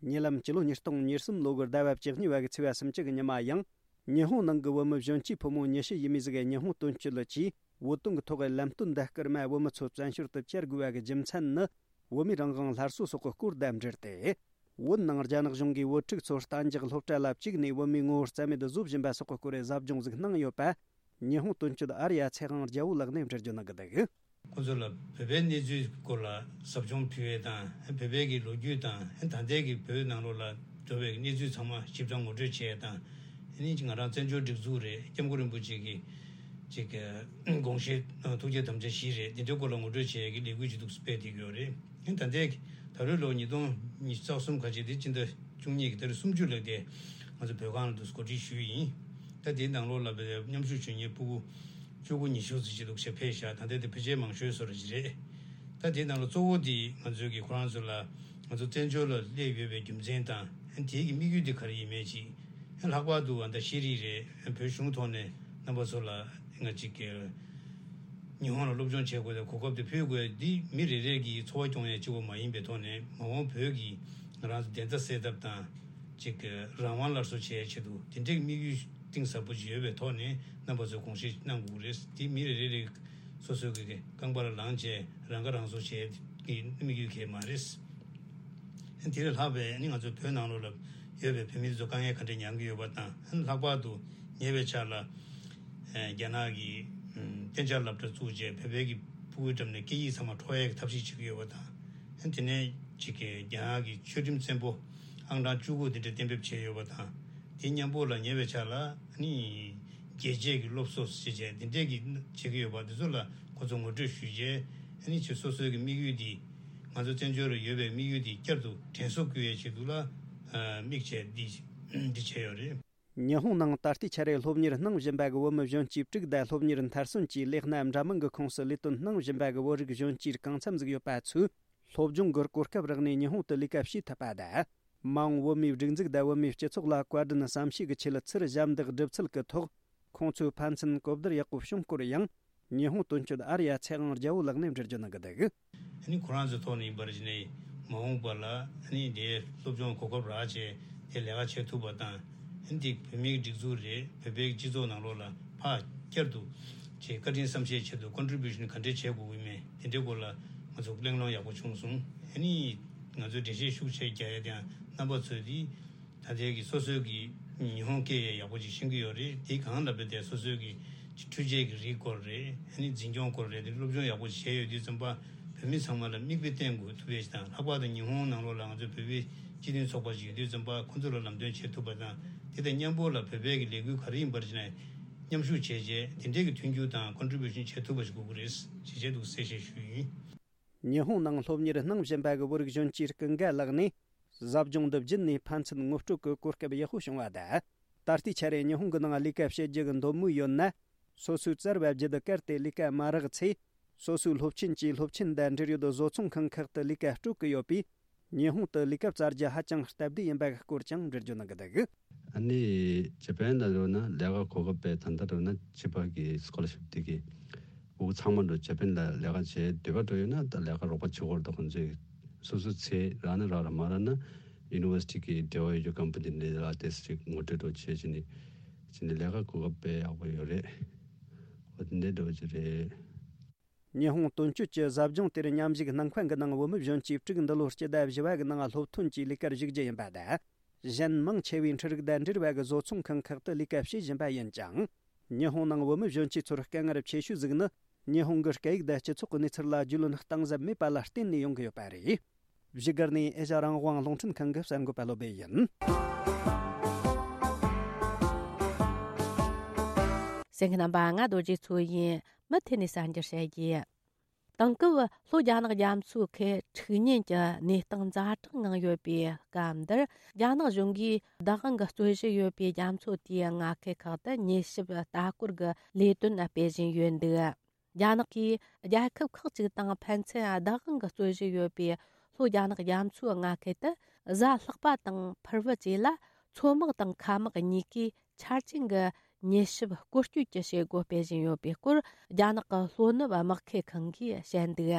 ཉེ་ལམ་སྤྱི་ལོ་ཉིས་སྟོང་ཉེར་གསུམ་ལོ་གི་ཟླ་བ་བཅུ་གཉིས་པ་གི་ཚེས་པ་སུམ་ཅུ་གི་ཉི་མ་ཡང་། ཉི་ཧོང་ནང་གི་བོད་མི་གཞོན་སྐྱེས་ཕོ་མོ་ཉི་ཤུ་ཡས་མས་ཟིག་གིས་ཉི་ཧོང་དོན་གཅོད་ལ་ཆེད་བོད་དོན་གྱི་ཐོག་གི་ལམ་སྟོན་འདི་སྐར་མ་བོད་མི་ཚོ་བཙན་བྱོལ་དུ་བཅར་དགོས་པ་གི་རྒྱུ་མཚན་ནི། བོད་མིའི་རང་དབང་སླར་གསོ་སོགས་ཀྱི་སྐོར་དང་འབྲེལ་ཏེ། བོད་ནང་རྒྱ་ནག་གཞུང་གིས་བོད་ཕྲུག་ཚོར་གཏན་འཇགས་སློབ་གྲྭ་ལ་བཅུག་ནས་བོད་མིའི་ངོ་བོ་རྩ་མེད་དུ་བཟོ་བཞིན་པ་སོགས་ཀྱི་སྐོར་གྱི་ཟབ་སྦྱོང་ཟིག་གནང་ཡོད་པ། ཉི་ཧོང་དོན་གཅོད་ཨར་ཡ་ཚེ་དབང་རྒྱལ་པོ་ལགས་ནས་འགྲེལ་བརྗོད་གནང་གི་འདུག། ཁོང་ཚོ་ལ་བོད་པའི་གནས་ཚུལ་སྐོར་ལ་ཟབ་སྦྱོང་ཕུལ་བ་དང་། བོད་པའི་གི་ལོ་རྒྱུས་དང་། ད་ལྟའི་གི་བོད་ནང་ལོགས་ལ་འགྲོ་བའི་གནས་ཚུལ་ཚང་མ་ཞིབ་ཕྲ་ངོ་སྤྲོད་བྱས་དང་། ཨ་ནི་ང་རང་བཙན་བྱོལ་སྒྲིག་འཛུགས་རེད། སྐྱབས་མགོན་རིན་པོ་ཆེ་གི་ཅིག་དགོངས་བཞེད་ཐུགས་བསྐྱེད་དམ་བཅའ་བཞི་རེད། འདི་འདྲའི་སྐོར་ལ་ངོ་སྤྲོད་བྱེད་ཡས་ཀྱི་ལས་འགུལ་ཅིག་འདུག་སྤེལ་བསྡད་ཀྱི་ཡོད་རེད། ད་ལྟའི་ད་རེས་ལོ་ཉིས་སྟོང་ཉི་ཤུ་རྩ་གསུམ་ཁ་ཆེ་དེ་སྤྱི་ཟླ་བཅུ་གཉིས་ཀྱི་ཏ་རིག་སུམ་ཅུ་ལ་དེ་ང་ཚོ་བོད་ཁང་ལ་འདུག་གོ་སྒྲིག་ཞུས་ཡིན། ད་དེའི་ནང་ལོགས་ལ་བའི་མཉམ་ཞུགས་བྱེད་མཁན་ཕྲུ་གུ་བཅུ་དགུ་ཉི་ཤུ་ཙམ་ཅིག་འདུག་ཞེས་ཕེབས་ཤག། ད་ལྟའི་དེ་ཕལ་ཆེར་མང་ཤོས་བཟོ་འདྲ་ཅིག་རེད། ད་དེའི་ནང་ལ་གཙོ་བོ་དེ་ང་ཚོའི་གི་ཁོ་རང་ཚོ་ལ་ང་ཚོ་བཙན་བྱོལ་ལ་སླེབས་ཡོད་པའི་རྒྱུ་མཚན་དང་། དེའི་གི་དམིགས་ཡུལ་དེ་ག་རེ་ཡིན་མིན་ཅིག། ལྷག་པར་དུ་ད་ཤེས་རིག་རེད། བོད་གཞུང་ཐོག་ནས་རྣམ་པ་ཚོ་ལ་ང་ཅིག་གི་ཉི་ཧོང་ལ་སློབ་སྦྱོང་བྱེད་དགོས་དང་གོ་སྐབས་དེ་ཕུལ་དགོས། འདི་མི་རེ་རེ་གི་འཚོ་བ་སྐྱོང་ཡས་གཅིག་པོ་མ་ཡིན་པའི་ཐོག་ནས། མ་འོངས་བོད་ཀྱི་ང་རང་ཚོ་བདེན་མཐའ་གསལ་ཐབས་དང་། ཅིག་གི་རང་དབང་སླར་གསོ་བྱེད་ཡས་ཆེད་དུ་དེ་འདྲའི་དམིགས་ཡུལ་གཏིང་ཟབ་པོ་ཅིག་ཡོད་པའི་ཐོག་ནས་རྣམ་པ་ཚོས་དགོངས་བཞེས་གནང་དགོས་ཀྱི་རེད། འདི་མི་རེ་རེ་རེ་སོ་སོའི་གི་རྐང་པར་ལངས་བྱས་རང་ཁ་རང་གསོ་བྱེད་ཀྱི་དམིགས་ཡུལ་གང་ཡང་མ་རེད། དེ་ལས་ལྷག་པའི་ནི་ང་ཚོ་བོད་ནང་ལོགས་ལ་ཡོད་པའི་བོད་མི་ཚོ་དཀའ་ངལ་ག་འདྲ་མྱངས་ཀྱི་ཡོད་པ་དང་། ལྷག་པར་དུ་ཉེ་བའི་ཆར་ལ་རྒྱ་ནག་གིས་གཏན་འཇགས་སློབ་གྲྭ་བཙུགས་བྱས་བོད་པའི་གི་ཕྲུ་གུའི་འགྲམ་ནས་སྐད་ཡིག་ཚང་མ་འཕྲོག་ཡས་ཀྱི་ཐབས་ཤེས་བྱེད་ཀྱི་ཡོད་པ་དང་། དེ་ནས་ཅིག་གི་རྒྱ་ནག་གི་ཆོས་ཁྲིམས་བཙན་པོ་ཨང་གྲངས་བཅུ་དགུ་དེ་འདྲ་གཏན་འབེབས་བྱས་ཡོད་པ་དང་། དེ་མཉམ་པོ་ལ་ཉེ་བའི་ཆར་ལ་ནི་རྒྱལ་གཅེས་ཀྱི་སློབ་གསོ་ཞེས་བྱས་དེ་འདྲས་ཀྱི་བྱེད་ཀྱི་ཡོད་པ་དེ་ཚོ་ལ་ཁོ་ཚོ་ངོ་སྤྲོད་ཞུས་རྗེས། ཨ་ནི་ཁྱེད་སོ་སོའི་གི་དམིགས་ཡུལ་འདི། ང་ཚོ་བཙན་བྱོལ་རུ་ཡོད་པའི་དམིགས་ཡུལ་འདི་བསྐྱར་དུ་དྲན་གསོ་བསྐུལ་བའི་ཆེད་དུ་ལ་དམིགས་བྱས་འདི་འདི་བྱས་ཡོད་རེད། ཉི་ཧོང་ནང་ད་ལྟའི་ཆར་སློབ་གཉེར་གནང་བཞིན་པ་གི་བོད་མི་གཞོན་སྐྱེས་དྲུག་དང་སློབ་གཉེར་མཐར་སོན་གྱིས་ལས་སྣ་འདྲ་མིན་གྱི་ཁོངས་སུ་ལས་དོན་གནང་བཞིན་པ་གི་བོད་རིགས་གཞོན་སྐྱེས་གང་འཚམ་ཟིག་ཡོད་པ་ཚོས། སློབ་སྦྱོང་གི་གོ་སྐབས་རག་ནས་ཉི་ཧོང་དུ་ལས་ཀ་བྱེད་ཐུབ་པ་དང་། མ་འོངས་བོད་མིའི་སྒྲིག་འཛུགས་དང་བོད་མིའི་སྤྱི་ཚོགས་ལ་བཀའ་དྲིན་བསམ་ཤེས་ཀྱི་ཆེད་ཚུར་ཞབས་འདེགས་སྒྲུབ་ཚུལ་གྱི་ཐོག་ཁོང་ཚོས་ཕན་ཚུན་གོ་བསྡུར་ཡག་པོ་བྱུང་སྐོར་ཡང་། ཉི་ཧོང་དོན་གཅོད་ཨར་ཡ་ཚེ་དབང་རྒྱལ་པོ་ལགས་ནས་འགྲེལ་བརྗོད་གནང་གི་འདུག། ཨ་ནི་ཁོ་རང་ཚོའི་ཐོག་ནས་ཡིན་པར་བྱས་ནས་མ་འོངས་པ་ལ་ཨ་ནི་དེའི་སློབ་སྦྱོང་གོ་སྐབས་རག་བྱས་དེ་ལས་ཀ་བྱེད་ཐུབ་པ་དང་། ཨ་ནི་དེ་བོད་མིའི་སྒྲིག་འཛུགས་རེད། བོད་པའི་སྤྱི་ཚོགས་ནང་ལོགས་ལ་ཕར་བསྐྱར་དུ་ཅིག་བཀའ་དྲིན་བསམ་ཤེས་ཆེད་དུ་ཀོན་ཊི་བྷིའུ་ཤན་ག་འདྲས་བྱེད་དགོས་ཀྱི་མེད། དེ་འདྲའི་སྐོར་ལ་ང་ཚོ་གླེང་སློང་ཡག་པོ་བྱུང་སོང་། ཨ་ནི་ང་ཚོའི་འགྲེལ་བཤད་ཤུགས་ཆེ་རྒྱག་ཡ་དེ་ཡང་རྣམ་པ་ཚོས་དེ། ད་ལྟའི་གི་སོ་སོའི་གི་ཉི་ཧོང་སྐད་ཡང་ཡག་པོ་ཅིག་ཤེས་ཀྱི་ཡོད་རེད། དེ་གང་ལ་བས་ཏེ་སོ་སོའི་གི་འཕྲུལ་ཆས་ཀྱི་རིགས་སྐོར་རེད། ཨ་ནི་འཛིན་སྐྱོང་སྐོར་རེད། དེ་སློབ་སྦྱོང་ཡག་པོ་ཅིག་བྱས་ཡོད་དུས་ཙམ་པ་བོད་མི་ཚང་མ་ལ་མིག་དཔེ་བསྟན་དགོས་ཐུབ་པའི་ཞིག་དང་། ལྷག་པར་དུ་ཉི་ཧོང་ནང་ལོགས་ལ་ང་ཚོའི་བོད་པའི་སྤྱི་མཐུན་ཚོགས་པ་ཅིག་ཡོད་དུས་ཙམ་པ་ཁོང་ཚོ་ལ་ལམ་སྟོན་བྱེད་ཐུབ་པ་དང་། དེ་དང་མཉམ་པོ་ལ་བོད་པའི་གི་ལས་འགུལ་ག་རེ་ཡིན་པར་བྱས་ནས་མཉམ་ཞུགས་བྱས་རྗེས་དེ་འདྲའི་གི་མཐུན་འགྱུར་དང་ཀོན་ཊི་བྷིའུ་ཤན་བྱེད་ཐུབ་པ་ཞིག་དགོས་ཀྱི་རེད་ཅེས་བྱས་འདུག་གསལ་བཤད་ཞུས་ཡིན། ཉི་ཧོང་ནང་སློབ་གཉེར་གནང་བཞིན་པ་གི་བོད་རིགས་གཞོན་སྐྱེས་ཀུན་དགའ་ལགས་ནས། གཟབ་སྦྱོང་འདི་བརྒྱུད་ནས་ཕན་ཚུན་ངོ་སྤྲོད་ཀྱི་གོ་སྐབས་ཡག་པོ་བྱུང་བ་དང་ ད་ལྟའི་ཆར་ཉི་ཧོང་གི་ནང་ལས་ཀ་བྱེད་རྒྱུ་གི་འདོད་མོས་ཡོད་ན། སོ་སོའི་བཙལ་བའི་བརྒྱུད་གལ་ཏེ་ལས་ཀ་མ་རག་ཚེ། སོ་སོའི་སློབ་ཆེན་གྱི་སློབ་ཆེན་དང་འབྲེལ་ཡོད་བཟོ་ཚོང་ཁང་ཁག་ཏུ་ལས་ཀ་སྤྲོད་ཀྱི་ཡོད་པས། ཉི་ཧོང་དུ་ལས་ཀ་བཙལ་རྒྱུ་ཧ་ཅང་སྟབས་བདེ་ཡིན་པའི་སྐོར་ཀྱང་འགྲེལ་བརྗོད་གནང་གི་འདུག་ཨ་ནི་ཇ་པན་ལ་ཡོད་ན་ལས་ཀ་གོ་སྐབས་དཔེ་ད་ལྟ་ཡོད་ན་ཕྱི་པ་གི་སི་ཀོ་ལར་ཤིབ་དེ་གི་འུ་ཚང་མ་འགྲོ་ཇ་པན་ལ་ལས་ཀ་བྱེད་འདོད་པ་འགྲོ་ཡོད་ན་ད་ལས་ཀ་རོགས་པ་བྱེད་དགོས་རེད། ད་ཁོང་ཚོས་སོ་སོའི་ཚེ་རག་ན་རག་ར་མ་རག་ན་ཡུ་ནི་ཝར་སི་ཊི་གི་འབྲེལ་བ་ཡོད་རྒྱུ་ཀམ་པ་ནི་ལས་ཀ་དེ་ཅིག་ངོ་སྤྲོད་འགྲོ་བྱེད་ཅི་ནི་ཅི་ནི་ལས་ཀ་གོ་སྐབས་དཔེ་ཡག་པོ་ཡོད་རེད། འོ་དེ་འདྲ་འགྲོ་གི་རེད། ཉི་ཧོང་དོན་གཅོད་ཀྱི་ཟབ་སྦྱོང་དེར་མཉམ་ཞུགས་གནང་མཁན་གྱི་ནང་བོད་མི་གཞོན་སྐྱེས་དྲུག་འདི་ལོ་སྤྱི་ཟླ་བཞི་བ་གི་ནང་སློབ་ཐོན་གྱི་ལས་ཀར་ཞུགས་རྒྱུ་ཡིན་པ་དང་། གཞན་མང་ཆེ་བས་འཕྲུལ་རིག་དང་འབྲེལ་བའི་བཟོ་ཚོང་ཁང་ཁག་ཏུ་ལས་ཀ་བྱེད་བཞིན་པ་ཡིན་ཀྱང་། ཉི་ཧོང་ནང་བོད་མི་གཞོན་སྐྱེས་ཚོར་དཀའ་ངལ་ཆེ་ཤོས་ཟིག་ནི། ཉི་ཧོང་གི་སྐད་ཡིག་དང་སྤྱི་ཚོགས་ཀྱི་གནས་ཚུལ་ལ་རྒྱུས་ལོན་གཏིང་ཟབ་མེད་པ་ལ་བརྟེན་ནས་ཡོང་གི་ཡོད་པ་རེད། བཞུགས་སྒར་ནས་ཨེ་ཤ་རང་དབང་རླུང་འཕྲིན་ཁང་གི་གསར་འགོད་པ་བློ་སྦེ་ཡིན། གསན་མཁན་རྣམ་པ། ང་རྡོ་རྗེ་མཚོ་ཡིན། མུ་མཐུད་ནས་གསར་འགྱུར་བཤད་རྒྱུ། དེང་སྐབས་ལྷོ་རྒྱ་ནག་རྒྱ་མཚོའི་ཁུལ་འཁྲུག་ཉེན་གྱི་གནས་སྟངས་ཛ་དྲག་ངང་ཡོད་པའི་སྐབས་འདིར། རྒྱ་ནག་གཞུང་གིས་བདག་དབང་གིས་རྩོད་གཞི་ཡོད་པའི་རྒྱ་མཚོ་དེའི་མངའ་ཁུལ་ཁག་ཏུ་མྱུལ་ཞིབ་ལྟ་སྐོར་གྱི་ལས་དོན་སྤེལ་བཞིན་ཡོད་འདུག་རྒྱ་ནག་གིས་རྒྱལ་ཁབ་ཁག་ཅིག་དང་ཕན་ཚུན་བདག་དབང་གིས་རྩོད་གཞི་ཡོད་པའི་ལྷོ་རྒྱ་ནག་རྒྱ་མཚོའི་མངའ་ཁུལ་དུ། གཟའ་ལྷག་པ་དང་ཕུར་བུ་བཅས་ལ་མཚོ་དམག་དང་མཁའ་དམག་གཉིས་ཀས་ཆ་རྐྱེན་གྱི་མྱུལ་ཞིབ་སྐོར་སྐྱོད་ཀྱི་བྱེད་སྒོ་སྤེལ་བཞིན་ཡོད་པའི་སྐོར། རྒྱ་ནག་གི་ལྷོ་ནུབ་དམག་ཁུལ་ཁང་གིས་བཤད་འདུག་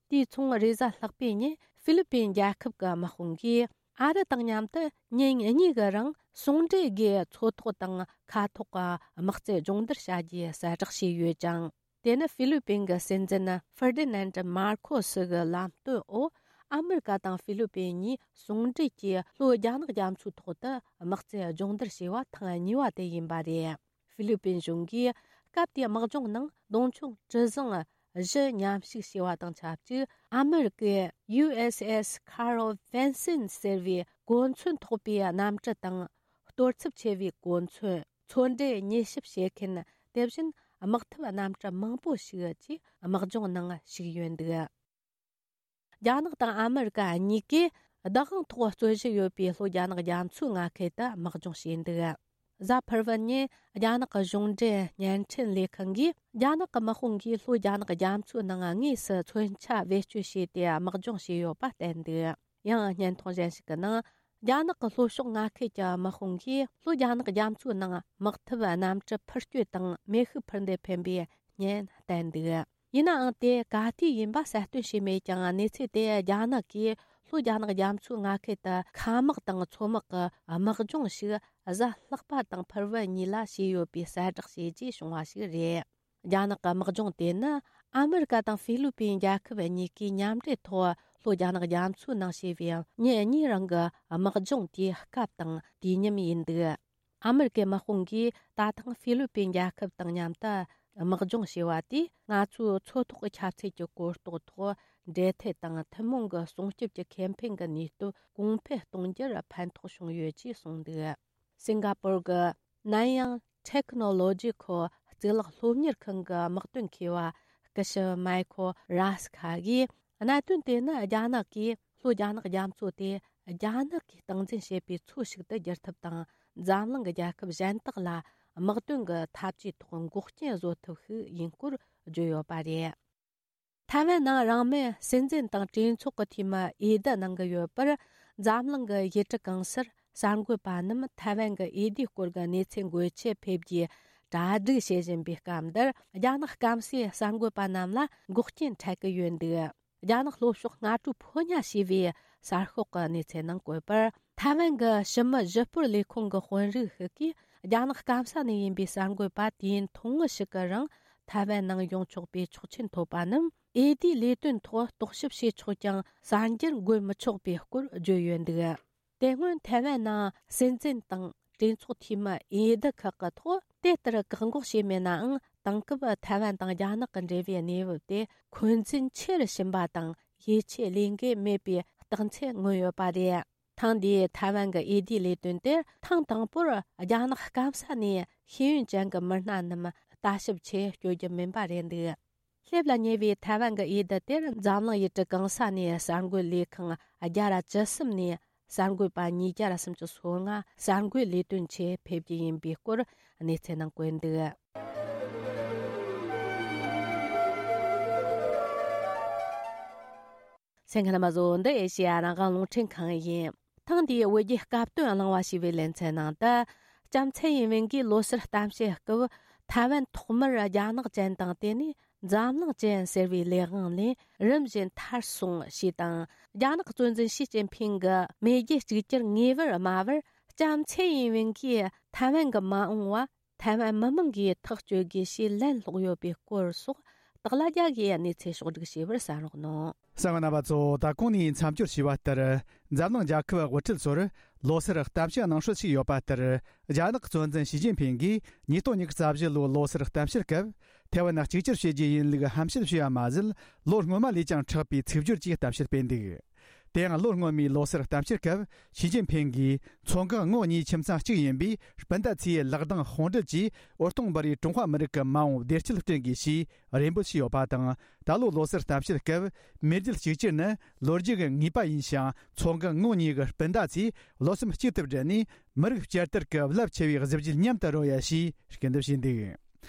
དེའི་མཚུངས། རེས་གཟའ་ལྷག་པའི་ཉིན་ཧྥི་ལི་པིན་རྒྱལ་ཁབ་ཀྱི་དམག་དཔུང་གིས་ཨ་རི་དང་མཉམ་དུ་ཉིན་གཉིས་ཀྱི་རིང་ཟུང་འབྲེལ་སྒོས་མཚོ་ཐོག་དང་མཁའ་ཐོག་གི་དམག་རྩལ་སྦྱོང་བརྡར་བྱ་རྒྱུའི་གསལ་བསྒྲགས་བྱས་ཡོད་ཅིང་། དེ་ནི་ཧྥི་ལི་པིན་གྱི་སྲིད་འཛིན་ཧྥེར་ཏི་ནན་ཏི་མར་ཁོ་སི་གི་ལམ་སྟོན་འོག་ཨ་མེ་རི་ཀ་དང་ཧྥི་ལི་པིན་གཉིས་ཟུང་འབྲེལ་གྱིས་ལྷོ་རྒྱ་ནག་རྒྱ་མཚོའི་ཐོག་ཏུ་དམག་རྩལ་སྦྱོང་བརྡར་བྱས་པ་ཐེངས་གཉིས་པ་དེ་ཡིན་པ་རེད། ཧྥི་ལི་པིན་གཞུང་གིས་སྐབས་དེའི་དམག་སྦྱོང་ནང་མདུང་མཆོང་གྲུ་གཟིངས་བཞི་མཉམ་ཞུགས་བྱས་པ་དང་ཆབས་ཅིག་ཨ་མེ་རི་ཀའི་ཡུ་ཨེས་ཨེས་ཁ་རོ་ཝན་སིན་ཟེར་བའི་གོ་མཚོན་ཐོགས་པའི་གནམ་གྲུ་དང་། གཏོར་ཚབས་ཆེ་བའི་གོ་མཚོན། མཚོ་འབྲེལ་མྱུལ་ཞིབ་བྱེད་མཁན། དེ་བཞིན་དམག་འཐབ་གནམ་གྲུ་མང་པོ་ཞིག་བཅས་དམག་སྦྱོང་ནང་ཞུགས་ཡོད་འདུག་རྒྱ་ནག་དང་ཨ་མེ་རི་ཀ་གཉིས་ཀས་བདག་དབང་ཐོག་རྩོད་གཞི་ཡོད་པའི་ལྷོ་རྒྱ་ནག་རྒྱ་མཚོའི་མངའ་ཁུལ་དུ་དམག་སྦྱོང་བྱས་འདུག་གཟའ་ཕུར་བུ་ཉིན་རྒྱ་ནག་གི་གཞུང་འབྲེལ་བརྙན་འཕྲིན་ལས་ཁང་གིས་རྒྱ་ནག་གི་དམག་དཔུང་གིས་ལྷོ་རྒྱ་ནག་རྒྱ་མཚོའི་ནང་དངོས་སུ་མཚོན་ཆ་བེད་སྤྱོད་བྱས་ཏེ་དམག་སྦྱོང་བྱས་ཡོད་པ་བསྟན་འདུག་ཡང་བརྙན་ཐུང་གཞན་ཞིག་གི་ནང་། རྒྱ་ནག་གི་ལྷོ་ཕྱོགས་མངའ་ཁུལ་གྱི་དམག་དཔུང་གིས་ལྷོ་རྒྱ་ནག་རྒྱ་མཚོའི་ནང་དམག་འཐབ་གནམ་གྲུ་འཕུར་སྐྱོད་དང་མེ་ཤུགས་འཕུར་མདེལ་འཕེན་པའི་བརྙན་བསྟན་འདུག་ཡིན་ནའང་དེ་ག་དུས་ཡིན་པ་གསལ་སྟོན་བྱས་མེད་ཀྱང་། གནས་ཚུལ་དེ་རྒྱ་ནག་གིས་ལྷོ་རྒྱ་ནག་རྒྱ་མཚོའི་མངའ་ཁུལ་དུ་མཁའ་དམག་དང་མཚོ་དམག་གི་དམག་སྦྱོང་ཞིག་གཟའ་ལྷག་པ་དང་ཕུར་བུ་གཉིས་ལ་བྱས་ཡོད་པའི་གསལ་བསྒྲགས་བྱས་རྗེས་བྱུང་བ་ཞིག་རེད། རྒྱ་ནག་གི་དམག་སྦྱོང་དེ་ནི་ཨ་མེ་རི་ཀ་དང་ཧྥི་ལི་པིན་རྒྱལ་ཁབ་གཉིས་ཀས་མཉམ་འབྲེལ་ཐོག་ལྷོ་རྒྱ་ནག་རྒྱ་མཚོའི་ནང་བྱས་པའི་ཉིན་གཉིས་རིང་གི་དམག་སྦྱོང་དེའི་སྐབས་དང་དུས་མཉམ་ཡིན་འདུག་ཨ་མེ་རི་ཀའི་དམག་དཔུང་གིས་ད་ཐེངས་ཧྥི་ལི་པིན་རྒྱལ་ཁབ་དང་མཉམ་དུ་དམག་སྦྱོང་བྱས་པ་དེས། ང་ཚོའི་མཚོ་ཐོག་གི་ཁྱབ་ཚད་ཀྱི་གོ་རྟོགས་ཐོག་འབྲེལ་མཐུད་དང་ཐུན་མོང་གི་སྲུང་སྐྱོབ་ཀྱི་ཁེ་ཕན་གྱི་ནུས་སྟོབས་གོང་འཕེལ་གཏོང་རྒྱུར་ཕན་ཐོགས་བྱུང་ཡོད་ཅེས་གསུངས་འདུག་སིང་ག་པུར་གྱི་ནན་ཡང་ཊེག་ནོ་ལོ་ཇི་ཁོ་གཙུག་ལག་སློབ་གཉེར་ཁང་གི་དམག་དོན་མཁས་པ་སྐུ་ཞབས་མའི་ཁོ་ར་སི་ཁ་གིས། གནད་དོན་དེ་ནི་རྒྱ་ནག་གིས་ལྷོ་རྒྱ་ནག་རྒྱ་མཚོ་དེ་རྒྱ་ནག་གིས་སྟངས་འཛིན་བྱེད་པའི་མཚོ་ཞིག་ཏུ་བསྒྱུར་ཐབས་དང་། འཛམ་གླིང་གི་རྒྱལ་ཁབ་གཞན་དག་ལ་དམག་དོན་གྱི་འཐབ་ཇུས་ཐོག་འགོག་རྐྱེན་བཟོ་ཐབས་ཤིག་ཡིན་སྐོར་བརྗོད་ཡོད་པ་རེད། ཐའེ་ཝན་ནང་རང་མོས་སྲིད་འཛིན་དང་གྲོས་ཚོགས་ཀྱི་འཐུས་མི་འོས་བསྡུ་གནང་གི་ཡོད་པར། འཛམ་གླིང་གི་ཡུལ་གྲུ་གང་སར་གསར་འགོད་པ་རྣམས་ཐའེ་ཝན་གྱི་འོས་བསྡུའི་སྐོར་གྱི་གནས་ཚུལ་འགོད་ཆེད་ཕེབས་རྒྱུའི་གྲ་སྒྲིག་བྱེད་བཞིན་པའི་སྐབས་འདིར། རྒྱ་ནག་སྐམ་སའི་གསར་འགོད་པ་རྣམས་ལ་འགོག་རྐྱེན་འཕྲད་ཀྱི་ཡོད་འདུག་རྒྱ་ནག་ལྷོ་ཕྱོགས་སྔ་དྲོའི་ཕོ་ཉ་ཞེས་པའི་གསར་ཤོག་གི་གནས་ཚུལ་ནང་བཀོད་པར། ཐའེ་ཝན་གྱི་ཕྱི་མི་ཞི་སྤོར་ལས་ཁུངས་ཀྱི་དཔོན་རིགས་ཤིག་གིས། རྒྱ་ནག་སྐམ་ས་ནས་ཡིན་པའི་གསར་འགོད་པ་དུས་ཡུན་ཐུང་ངུ་ཞིག་གི་རིང་ཐའེ་ཝན་ནང་ཡོང་ཆོག་པའི་ཆོག་མཆན་ཐོབ་པ་རྣམས། འོས་བསྡུའི་ལས་དོན་ཐོག་རྟོག་ཞིབ་བྱེད་ཆོག་ཀྱང་། གསར་འགྱུར་འགོད་མི་ཆོག་པའི་སྐོར་བརྗོད་ཡོད་འདུག་དེ་སྔོན་ཐའེ་ཝན་ནང་སྲིད་འཛིན་དང་གྲོས་ཚོགས་འཐུས་མི་འོས་བསྡུ་ཁག་གི་ཐོག་དེ་ལྟར་བཀག་འགོག་བྱས་མེད་ནའང་། དེང་སྐབས་ཐའེ་ཝན་དང་རྒྱ་ནག་གི་འབྲེལ་བའི་གནས་བབ་དེ་འཁོན་འཛིན་ཆེ་རུ་ཕྱིན་པ་དང་། ཡིད་ཆེས་ལས་འགན་མེད་པའི་རྟགས་མཚན་མངོན་ཡོད་པ་རེད། ཐེངས་འདིའི་ཐའེ་ཝན་གྱི་འོས་བསྡུའི་ལས་དོན་དེར། ཐེངས་དང་པོར་རྒྱ་ནག་སྐམ་ས་ནས་ཤེས་ཡོན་ཅན་གྱི་མི་སྣ་རྣམས་ལྟ་ཞིབ་ཆེད་བསྐྱོད་རྒྱུ་མིན་པ་རེད་འདུག་སླེབས་ལ་ཉེ་བའི་ཐའེ་ཝན་གྱི་འོས་བསྡུ་དེར། འཛམ་གླིང་ཡུལ་གྲུ་གང་ས་ནས་གསར་འགོད་ལས་ཁང་བརྒྱ་ར་བཅུ་གསུམ་ནས་ གསར་འགོད་པ་ཉིས་བརྒྱ་སུམ་ཅུ་སོ་ལྔ་གསར་འགོད་ལས་དོན་ཆེད་ཕེབས་རྒྱུ་ཡིན་པའི་སྐོར་གནས་ཚུལ་ནང་བཀོད་འདུག་གསན་མཁན་རྣམ་པ་ཚོ། འདི་ཨེ་ཤེ་ཡ་རང་དབང་རླུང་འཕྲིན་ཁང་ཡིན། ཐེངས་འདིའི་བོད་རྒྱའི་སྐབས་བསྟུན་གླེང་བ་ཞེས་པའི་ལེ་ཚན་ནང་དུ། ལྕམ་ཚེ་ཡིན་ཝེན་གྱིས་ལོ་སར་གཏམ་བཤད་སྐབས། ཐའེ་ཝན་ཐོག་མར་རྒྱ་ནག་ཅན་དང་དེ་ནས་འཛམ་གླིང་ཅན་ཟེར་བའི་ལས་དབང་ལས་རིམ་བཞིན་ཐར་སོང་ཞེས་དང་། རྒྱ་ནག་གཙོ་འཛིན་ཞི་ཅིན་ཕིང་གི་མེས་རྒྱལ་གཅིག་གྱུར་ངེས་པར་སྨྲ་བར། ལྕམ་ཚེ་ཡིན་ཝེན་གྱིས་ཐའེ་ཝན་གྱི་མ་འོངས་པ། ཐའེ་ཝན་མི་མང་གིས་ཐག་གཅོད་དགོས་ཞེས་ལན་སློག་ཡོད་པའི་སྐོར་སོགས། སྟག་ལྷ་རྒྱལ་གྱིས་གནས་ཚུལ་ཕྱོགས་བསྒྲིགས་བྱས་པར་གསན་རོགས་གནང་། གསན་པ་རྣམ་པ་ཚོ། ད་གོང་ནས་མཚམས་སྦྱོར་བྱས་པ་ལྟར། འཛམ་གླིང་རྒྱལ་ཁབ་དབུ་ཁྲིད་ཚོར་ལོ་སར་གཏམ་བཤད་གནང་སྲོལ་ཞིག་ཡོད་པ་ལྟར། རྒྱ་ནག་གཙོ་འཛིན་ཞི་ཅིན་ཕིང་གིས་ཉིས་སྟོང་ཉི་ཤུ་རྩ་བཞི་ལོའི་ལོ་སར་གཏམ་བཤད་སྐབས། ཐའེ་ཝན་གཅིག་གྱུར་བྱེད་རྒྱུ་ཡིན་ལུགས་ཧམ་བཤད་བྱས་པ་མ་ཟད། ལོ་སྔོན་མ་ལས་ཀྱང་དྲག་པའི་ཚིག་སྦྱོར་གྱིས་གཏམ་བཤད་སྤེལ་འདུག་དེ་ཡང་ལོ་སྔོན་མའི་ལོ་སར་གཏམ་བཤད་སྐབས། ཞི་ཅིན་ཕིང་གིས་མཚོ་འགག་ངོགས་གཉིས་ཁྱིམ་ཚང་གཅིག་ཡིན་པའི་སྤུན་ཟླ་ཚོས་ལག་གདང་དཔུང་སྦྲེལ་གྱིས་འོད་སྟོང་འབར་བའི་ཀྲུང་ཧྭ་མི་རིགས་ཀྱི་མ་འོངས་བདེ་སྐྱིད་བསྐྲུན་དགོས་ཞེས་རེ་འབོད་བྱས་ཡོད་པ་དང་། ད་ལོའི་ལོ་སར་གཏམ་བཤད་སྐབས། མེས་རྒྱལ་གཅིག་གྱུར་ནི་ལོ་རྒྱུས་ཀྱི་ངེས་པ་ཡིན་ཞིང་། མཚོ་འགག་ངོགས་གཉིས་ཀྱི་སྤུན་ཟླ་ཚོས་བློ་སེམས་གཅིག་ཏུ་སྦྲེལ་ནས། མི་རིགས་བསྐྱར་དར་གྱི་རླབས་ཆེ་བའི་གཟི་བརྗིད་མཉམ་དུ་རོལ་ཡ་ཞེས་སྐུལ་འདེབས་བྱས་འདུག་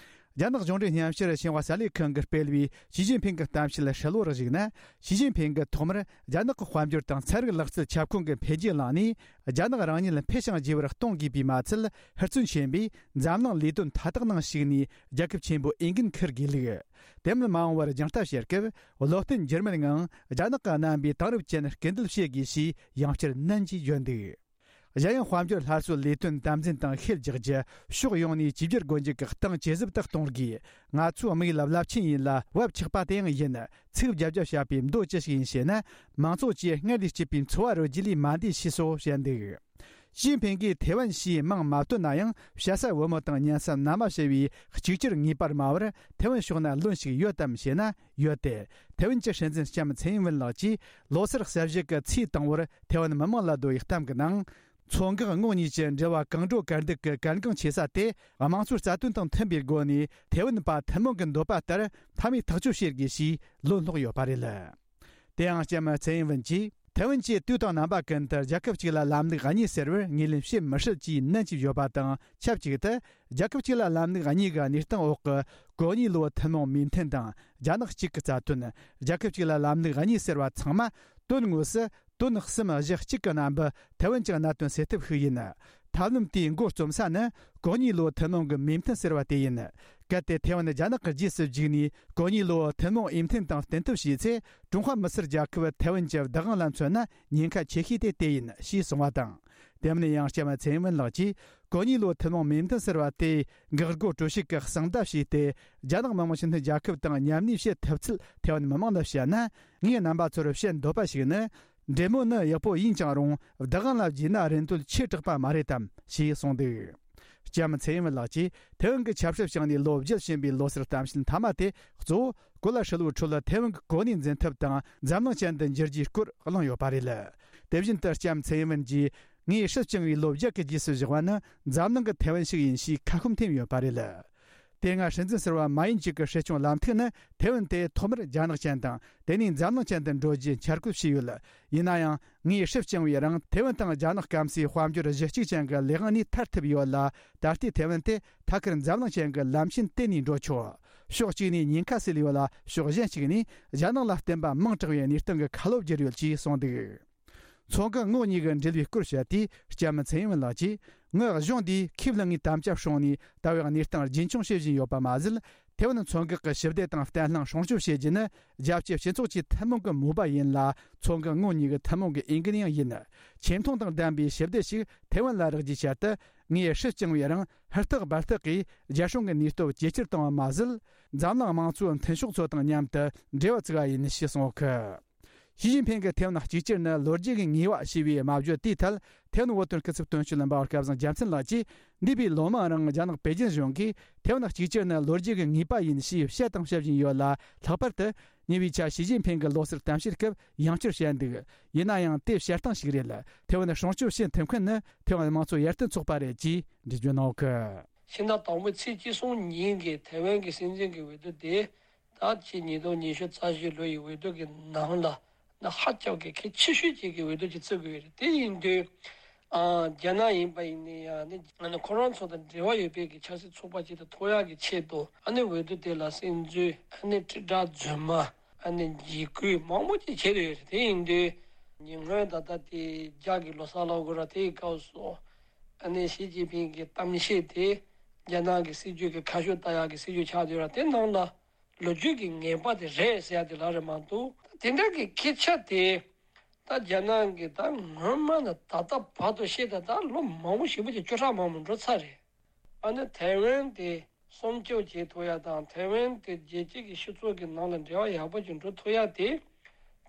རྒྱ་ནག་གཞུང་འབྲེལ་སྙན་ཞུར་ཞིན་ཧྭ་གསར་ལས་ཁང་གིས་སྤེལ་བའི་ཞི་ཅིན་ཕིང་གི་གཏམ་བཤད་ཧྲིལ་བོར་གཞིགས་ན། ཞི་ཅིན་ཕིང་གིས་ཐོག་མར་རྒྱ་ནག་གི་དཔལ་འབྱོར་དང་ཚན་རིག་ལག་རྩལ་ཁྱབ་ཁོངས་ཀྱི་འཕེལ་རྒྱས་བླངས་ནས། རྒྱ་ནག་རང་ཉིད་འཕེལ་ཞིང་རྒྱས་པར་གཏོང་དགོས་པས་མ་ཚད། ཧུར་བརྩོན་ཆེན་པོས་འཛམ་གླིང་ལས་དོན་མཐའ་དག་ནང་ཞུགས་ནས་རྒྱལ་ཁབ་ཆེན་པོའི་འོས་འགན་འཁུར་དགོས་ལུགས། དེ་མིན་མ་འོངས་པར་རྒྱང་ལྟ་བྱེད་སྐབས། བློ་བརྟན་འགྱུར་མེདངང་རྒྱ་ནག་གི་རྣམ་པའི་དེང་རབས་ཅན་སྐུལ་འདེད་བྱེད་དགོས་ཞེས་ཡང་བསྐྱར་ནན་གྱིས་བརྗོད་འདུག་གཞན་ཡང་། དཔལ་འབྱོར་སླར་གསོའི་ལས་དོན་དམ་འཛིན་དང་ཤེད་རྒྱག་རྒྱུ། ཕྱོགས་ཡོངས་ནས་བཅོས་བསྒྱུར་སྒོ་འབྱེད་ཀྱི་སྟངས་ཇེ་ཟབ་ཏུ་གཏོང་དགོས། ང་ཚོའི་དམིགས་ཡུལ་རླབས་ཆེན་ཡིན་ལ་བབ་ཆགས་པ་དེ་ཡང་ཡིན། ཚིག་བརྒྱབ་བརྒྱབ་བྱ་བའི་མདོ་ཅི་ཞིག་ཡིན་ཞེ་ན། མང་ཚོགས་ཀྱིས་སྔར་ལས་སྐྱིད་པའི་འཚོ་བ་རོལ་རྒྱུ་ལས་མ་འདས་ཞེས་སོགས་བཤད་འདུག་ཞི་ཅིན་ཕིང་གིས་ཐེ་ཝན་ཞེས་མིང་མ་བཏོན་ན་ཡང་། བཤད་ས་བུ་མོ་དང་ཉན་ས་མནའ་མ་ཞེས་པའི་གཅིག་གྱུར་ངེས་པར་སྨྲ་བར་ཐེ་ཝན་ཕྱོགས་ན་ལོན་ཞིག་ཡོད་དམ་ཞེ་ན། ཡོད་དེ། ཐེ་ཝན་གྱི་སྲིད་འཛིན་ལྕམ་ཚེ་ཡིན་ཝུན་ལགས་ཀྱིས་ལོ་སར་གསར་བཞད་ཀྱི་ཚེས་དང་པོར་ཐེ་ཝན་མི་མང་ལ་བསྡུ་བའི་གཏམ་གྱི་ནང་། མཚོ་འགག་ངོགས་གཉིས་ཀྱི་འབྲེལ་བ་གང་འགྲོ་གར་འདུག་གི་གལ་འགངས་ཆེ་ས་དེ། དམངས་གཙོའི་རྩ་དོན་དང་མཐུན་པའི་སྒོ་ནས་ཐེ་ཝན་པ་ཐུན་མོང་གི་འདོད་པ་ལྟར་མཐའ་མའི་ཐག་གཅོད་བྱེད་དགོས་ཞེས་ལན་སློག་ཡོད་པ་རེད། དེ་ཡང་ལྕམ་ཚེ་ཡིན་ཝུན་གྱིས། ཐེ་ཝན་གྱིས་དུས་དང་རྣམ་པ་ཀུན་ཏུ་རྒྱལ་ཁབ་གཅིག་ལ་ལམ་ལུགས་གཉིས་ཟེར་བར་ངོས་ལེན་བྱེད་མི་སྲིད་ཅེས་ནན་གྱིས་བརྗོད་པ་དང་ཆབས་ཅིག་ཏུ། རྒྱལ་ཁབ་གཅིག་ལ་ལམ་ལུགས་གཉིས་ཀྱི་གནས་སྟངས་འོག་གི་གོ་གཉིས་ལོའི་ཐུན་མོང་མོས་མཐུན་དང་རྒྱ་ནག་གཅིག་གི་རྩ་དོན། རྒྱལ་ཁབ་གཅིག་ལ་ལམ་ལུགས་གཉིས་ཟེར་བ་ཚང་མ་དོན་དངོས་སུ་དོན་གསུམ་གཞི་གཅིག་གི་རྣམ་པ་ཐེ་ཝན་གྱི་གནད་དོན་སེལ་ཐབས་ཤིག་ཡིན། ཐབས་ལམ་དེའི་མགོ་རྩོམ་ས་ནི་གོ་གཉིས་ལོའི་ཐུན་མོང་གི་མོས་མཐུན་ཟེར་བ་དེ་ཡིན། གལ་ཏེ་ཐེ་ཝན་རྒྱ་ནག་གི་རྗེས་སུ་འཇུག་ནས་གོ་གཉིས་ལོའི་ཐུན་མོང་འོས་མཐུན་དང་བསྟུན་ཐབས་བྱས་ཚེ། ཀྲུང་ཧྭ་མི་སེར་རྒྱལ་ཁབ་ཐེ་ཝན་གྱི་བདག་དབང་ལ་མཚོན་ན་ཉེན་ཁ་ཆེ་ཤོས་དེ་དེ་ཡིན་ཞེས་གསུངས་པ་དང་། དེ་མིན་ཡང་ལྕམ་ཚེ་ཡིན་ཝུན་ལགས་ཀྱིས་གོ་གཉིས་ལོའི་ཐུན་མོང་མོས་མཐུན་ཟེར་བ་དེ་འགག་སྒོ་གྲོལ་བྱེད་ཀྱི་གསང་བརྡ་བྱས་ཏེ། རྒྱ་ནག་མི་དམངས་སྤྱི་མཐུན་རྒྱལ་ཁབ་དང་མཉམ་གནས་བྱེད་ཐུབ་ཚུལ་ཐེ་ཝན་མི་མང་ལ་བཤད་ན། ངས་རྣམ་པ་ཚོར་བཤད་འདོད་པ་ཞིག་ནི། འབྲེལ་མོལ་ནི་ཡག་པོ་ཡིན་ཀྱང་རུང་། བདག་དབང་ལ་བརྗེས་ན་རིན་དོད་ཆེ་དྲགས་པ་མ་རེད་དམ་ཞེས་གསུངས་འདུག་ལྕམ་ཚེ་ཡིན་ཝུན་ལགས་ཀྱིས་ཐེ་ཝན་གྱི་ཆབ་སྲིད་བྱུང་ནས་ལོ་བརྒྱད་ཕྱིན་པའི་ལོ་སར་གཏམ་བཤད་མཐའ་མ་དེ་གཙོ་བོ་གོ་ལ་ཧྲིལ་བོའི་ཁྲོད་ཐེ་ཝན་གྱི་གོ་གནས་འཛིན་ཐབས་དང་འཛམ་གླིང་ཅན་དུ་འགྱུར་རྒྱུའི་སྐོར་གླེང་ཡོད་པ་རེད། དེ་བཞིན་དུ་ལྕམ་ཚེ་ཡིན་ཝུན་གྱིས། ངས་སྲིད་བསྐྱངས་པའི་ལོ་བརྒྱད་ཀྱི་རྗེས་སུ་བཞག་པ་ནི་འཛམ་གླིང་གི་ཐེ་ཝན་ཞིག་ཡིན་ཞེས་ཁ་སྐོམ་ཐེབས་ཡོད་པ་རེད། དེ་སྔ་སྲིད་འཛིན་ཟུར་པ་མ་ཡིན་ཅིག་གི་སྲིད་སྐྱོང་ལམ་ཐིག་ནི་ཐེ་ཝན་དེ་ཐོག་མར་རྒྱ་ནག་ཅན་དང་དེ་ནས་འཛམ་གླིང་ཅན་དུ་འགྲོ་རྒྱུའི་འཆར་འགོད་བྱས་ཡོད། ཡིན་ན་ཡང་། ངས་སྲིད་བསྐྱངས་པའི་རིང་ཐེ་ཝན་དང་རྒྱ་ནག་སྐམ་སའི་དཔལ་འབྱོར་གཞི་གཅིག་ཅན་གྱི་ལས་དབང་ནས་ཐར་ཐུབ་ཡོད་ལ། ད་ལྟའི་ཐེ་ཝན་དེ་ཐད་ཀར་འཛམ་གླིང་ཅན་གྱི་ལམ་ཆེན་དེད་ནས་འགྲོ་ཆོག་ཕྱོགས་གཅིག་ནས་ཉེན་ཁ་སེལ་ཡོད་ལ། ཕྱོགས་གཞན་གཅིག་ནས་རྒྱ་ནག་ལ་བརྟེན་པ་མང་དྲགས་པའི་གནས་སྟངས་ཀྱི་ཁ་ལོ་བསྒྱུར་ཡོད་ཅེས་གསུངས་འདུག་མཚོ་འགག་ངོགས་གཉིས་ཀྱི་འབྲེལ་བའི་སྐོར་བཤད་དུས། ལྕམ་ཚེ་ཡིན་ཝུན་ལགས་ཀྱིས། ངོས་གཞུང་འདིས་ཁས་བླངས་ངེས་དམ་བཅའ་སྲུང་ནས་ལྟ་བའི་གནས་སྟངས་རྒྱུན་འཁྱོངས་བྱེད་བཞིན་ཡོད་པ་མ་ཟད། ཐེ་ཝན་མཚོ་འགག་གི་ཞི་བདེ་དང་བརྟན་ལྷིང་སྲུང་སྐྱོབ་བྱེད་རྒྱུ་ནི་རྒྱལ་སྤྱིའི་སྤྱི་ཚོགས་ཀྱི་ཐུན་མོང་གི་མོས་པ་ཡིན་ལ། མཚོ་འགག་ངོས་གཉིས་ཀྱི་ཐུན་མོང་གི་འོས་འགན་ཡང་ཡིན། ཆེ་མཐོང་དང་ལྡན་པའི་ཞི་བདེ་ཞིག་ཐེ་ཝན་ལ་རག་རྒྱུའི་ཆེད་དུ། ངས་སྲིད་བསྐྱངས་པའི་རིང་ཧུར་ཐག་འབད་ཐག་གིས་རྒྱལ་སྲུང་གི་ནུས་སྟོབས་ཇེ་ཆེར་བཏང་བ་མ་ཟད། འཛམ་གླིང་དམངས་གཙོའི་མཐུན་ཕྱོགས་ཚོ་དང་མཉམ་དུ་འབྲེལ་བ་བཙུགས་པ་ཡིན་ཞེས་གསུངས་ཡོད། ཞི་ཅིན་ཕིང་གིས་ཐེ་ཝན་གཅིག་གྱུར་ནི་ལོ་རྒྱུས་ཀྱི་ངེས་པ་ཞེས་པའི་སྨྲ་བརྗོད་དེའི་ཐད། ཐེ་ཝན་བོད་དོན་སྐུ་ཚབ་དོན་གཅོད་ལྷན་པ་སྐལ་བཟང་རྒྱལ་མཚན་ལགས་ཀྱིས། འདས་པའི་ལོ་མང་རིང་རྒྱ་ནག་པེ་ཅིན་གཞུང་གིས་ཐེ་ཝན་གཅིག་གྱུར་ནི་ལོ་རྒྱུས་ཀྱི་ངེས་པ་ཡིན་ཞེས་བཤད་དང་བཤད་བཞིན་ཡོད་ལ། ལྷག་པར་དུ་ཉེ་བའི་ཆར་ཞི་ཅིན་ཕིང་གིས་ལོ་སར་གཏམ་བཤད་སྐབས་ཡང་བསྐྱར་བཤད་འདུག་ཡིན་ན་ཡང་དེ་བཤད་སྟངས་ཤིག་རེད། ཐེ་ཝན་སྲུང་སྐྱོབ་བྱེད་ཐུབ་མཁན་ནི་ཐེ་ཝན་དམངས་གཙོ་ཡར་ཐོན་ཚོགས་པ་རེད་ཅེས་འགྲེལ་བརྗོད་གནང་ཡོད། ཕྱི་ཟླ་དང་པོའི་ཚེས་བཅུ་གསུམ་ཉིན་གྱི་ཐེ་ཝན་གྱི་སྲིད་འཛིན་གྱི་འོས་བསྡུ་དེ། ད་ཕྱི་ཉིས་སྟོང་ཉི་ཤུ་རྩ་བཞི་ལོ་ཡི་འོས་བསྡུ་གི་ནང་ལ་ ད་ཧ་ཅང་གི་གལ་ཆེ་ཤོས་ཅིག་གི་འོས་བསྡུ་ཅིག་བརྩི་དགོས་རེད། དེ་ཡིན་དུས། ཨ། རྒྱ་ནག་ཡིན་པ་ཡིན་ནའི་ཡང་ནི་ཨ་ནི་ཁོ་རང་ཚོ་དང་འབྲེལ་བ་ཡོད་པའི་གི་ཆབ་སྲིད་ཚོགས་པ་ཅིག་ཏུ་ཐོབ་ཡག་གི་ཆེད་དུ། ཨ་ནི་འོས་བསྡུ་དེ་ལ་གསན་རྩིས། ཨ་ནི་དྲིལ་བསྒྲགས་རྫུན་མ། ཨ་ནི་འཇིགས་སྐུལ་མང་པོ་ཅིག་བྱས་ཡོད་རེད། དེ་ཡིན་དུས་ཉེ་སྔོན་ད་ལྟ་དེ་རྒྱ་གི་ལོ་གསར་ལོ་དགུ་ར་དེའི་སྐབས་སུ། ཨ་ནི་ཞི་ཅིན་ཕིང་གི་གཏམ་བཤད་དེ་རྒྱ་ནག་གི་སྲིད་ཇུས་ཀྱི་ཁ་ཕྱོགས་ལྟ་ཡག་གི་སྲིད་ཇུས་ཆགས་ཡོད་ར། དེ་ནང་ལ་ལོ་རྒྱུས་ཀྱི་ངེས་པ་དེ་རེད་ཟེར་ཡ་དེ་ལ་རེད་མ་གཏོགས། དེ་འདྲ་གི་སྐད་ཆ་དེ་ད་རྒྱ་ནག་གི་ད་སྔོན་མ་ནས་ད་ལྟ་བར་དུ་བཤད་ད་ད་ལོ་མང་པོ་ཞེ་པོ་ཅིག་བཅུ་ཕྲག་མང་པོ་འགྲོ་ཚར་རེད། ཨ་ནི་ཐའེ་ཝན་དེ་སྲུང་སྐྱོབ་བྱེད་ཐུབ་ཡ་དང་། ཐའེ་ཝན་དེ་རྒྱལ་སྤྱི་གི་སྤྱི་ཚོགས་ཀྱི་ནང་ལ་འབྲེལ་བ་ཡག་པོ་ཅིག་འགྲོ་ཐུབ་ཡ་དེ།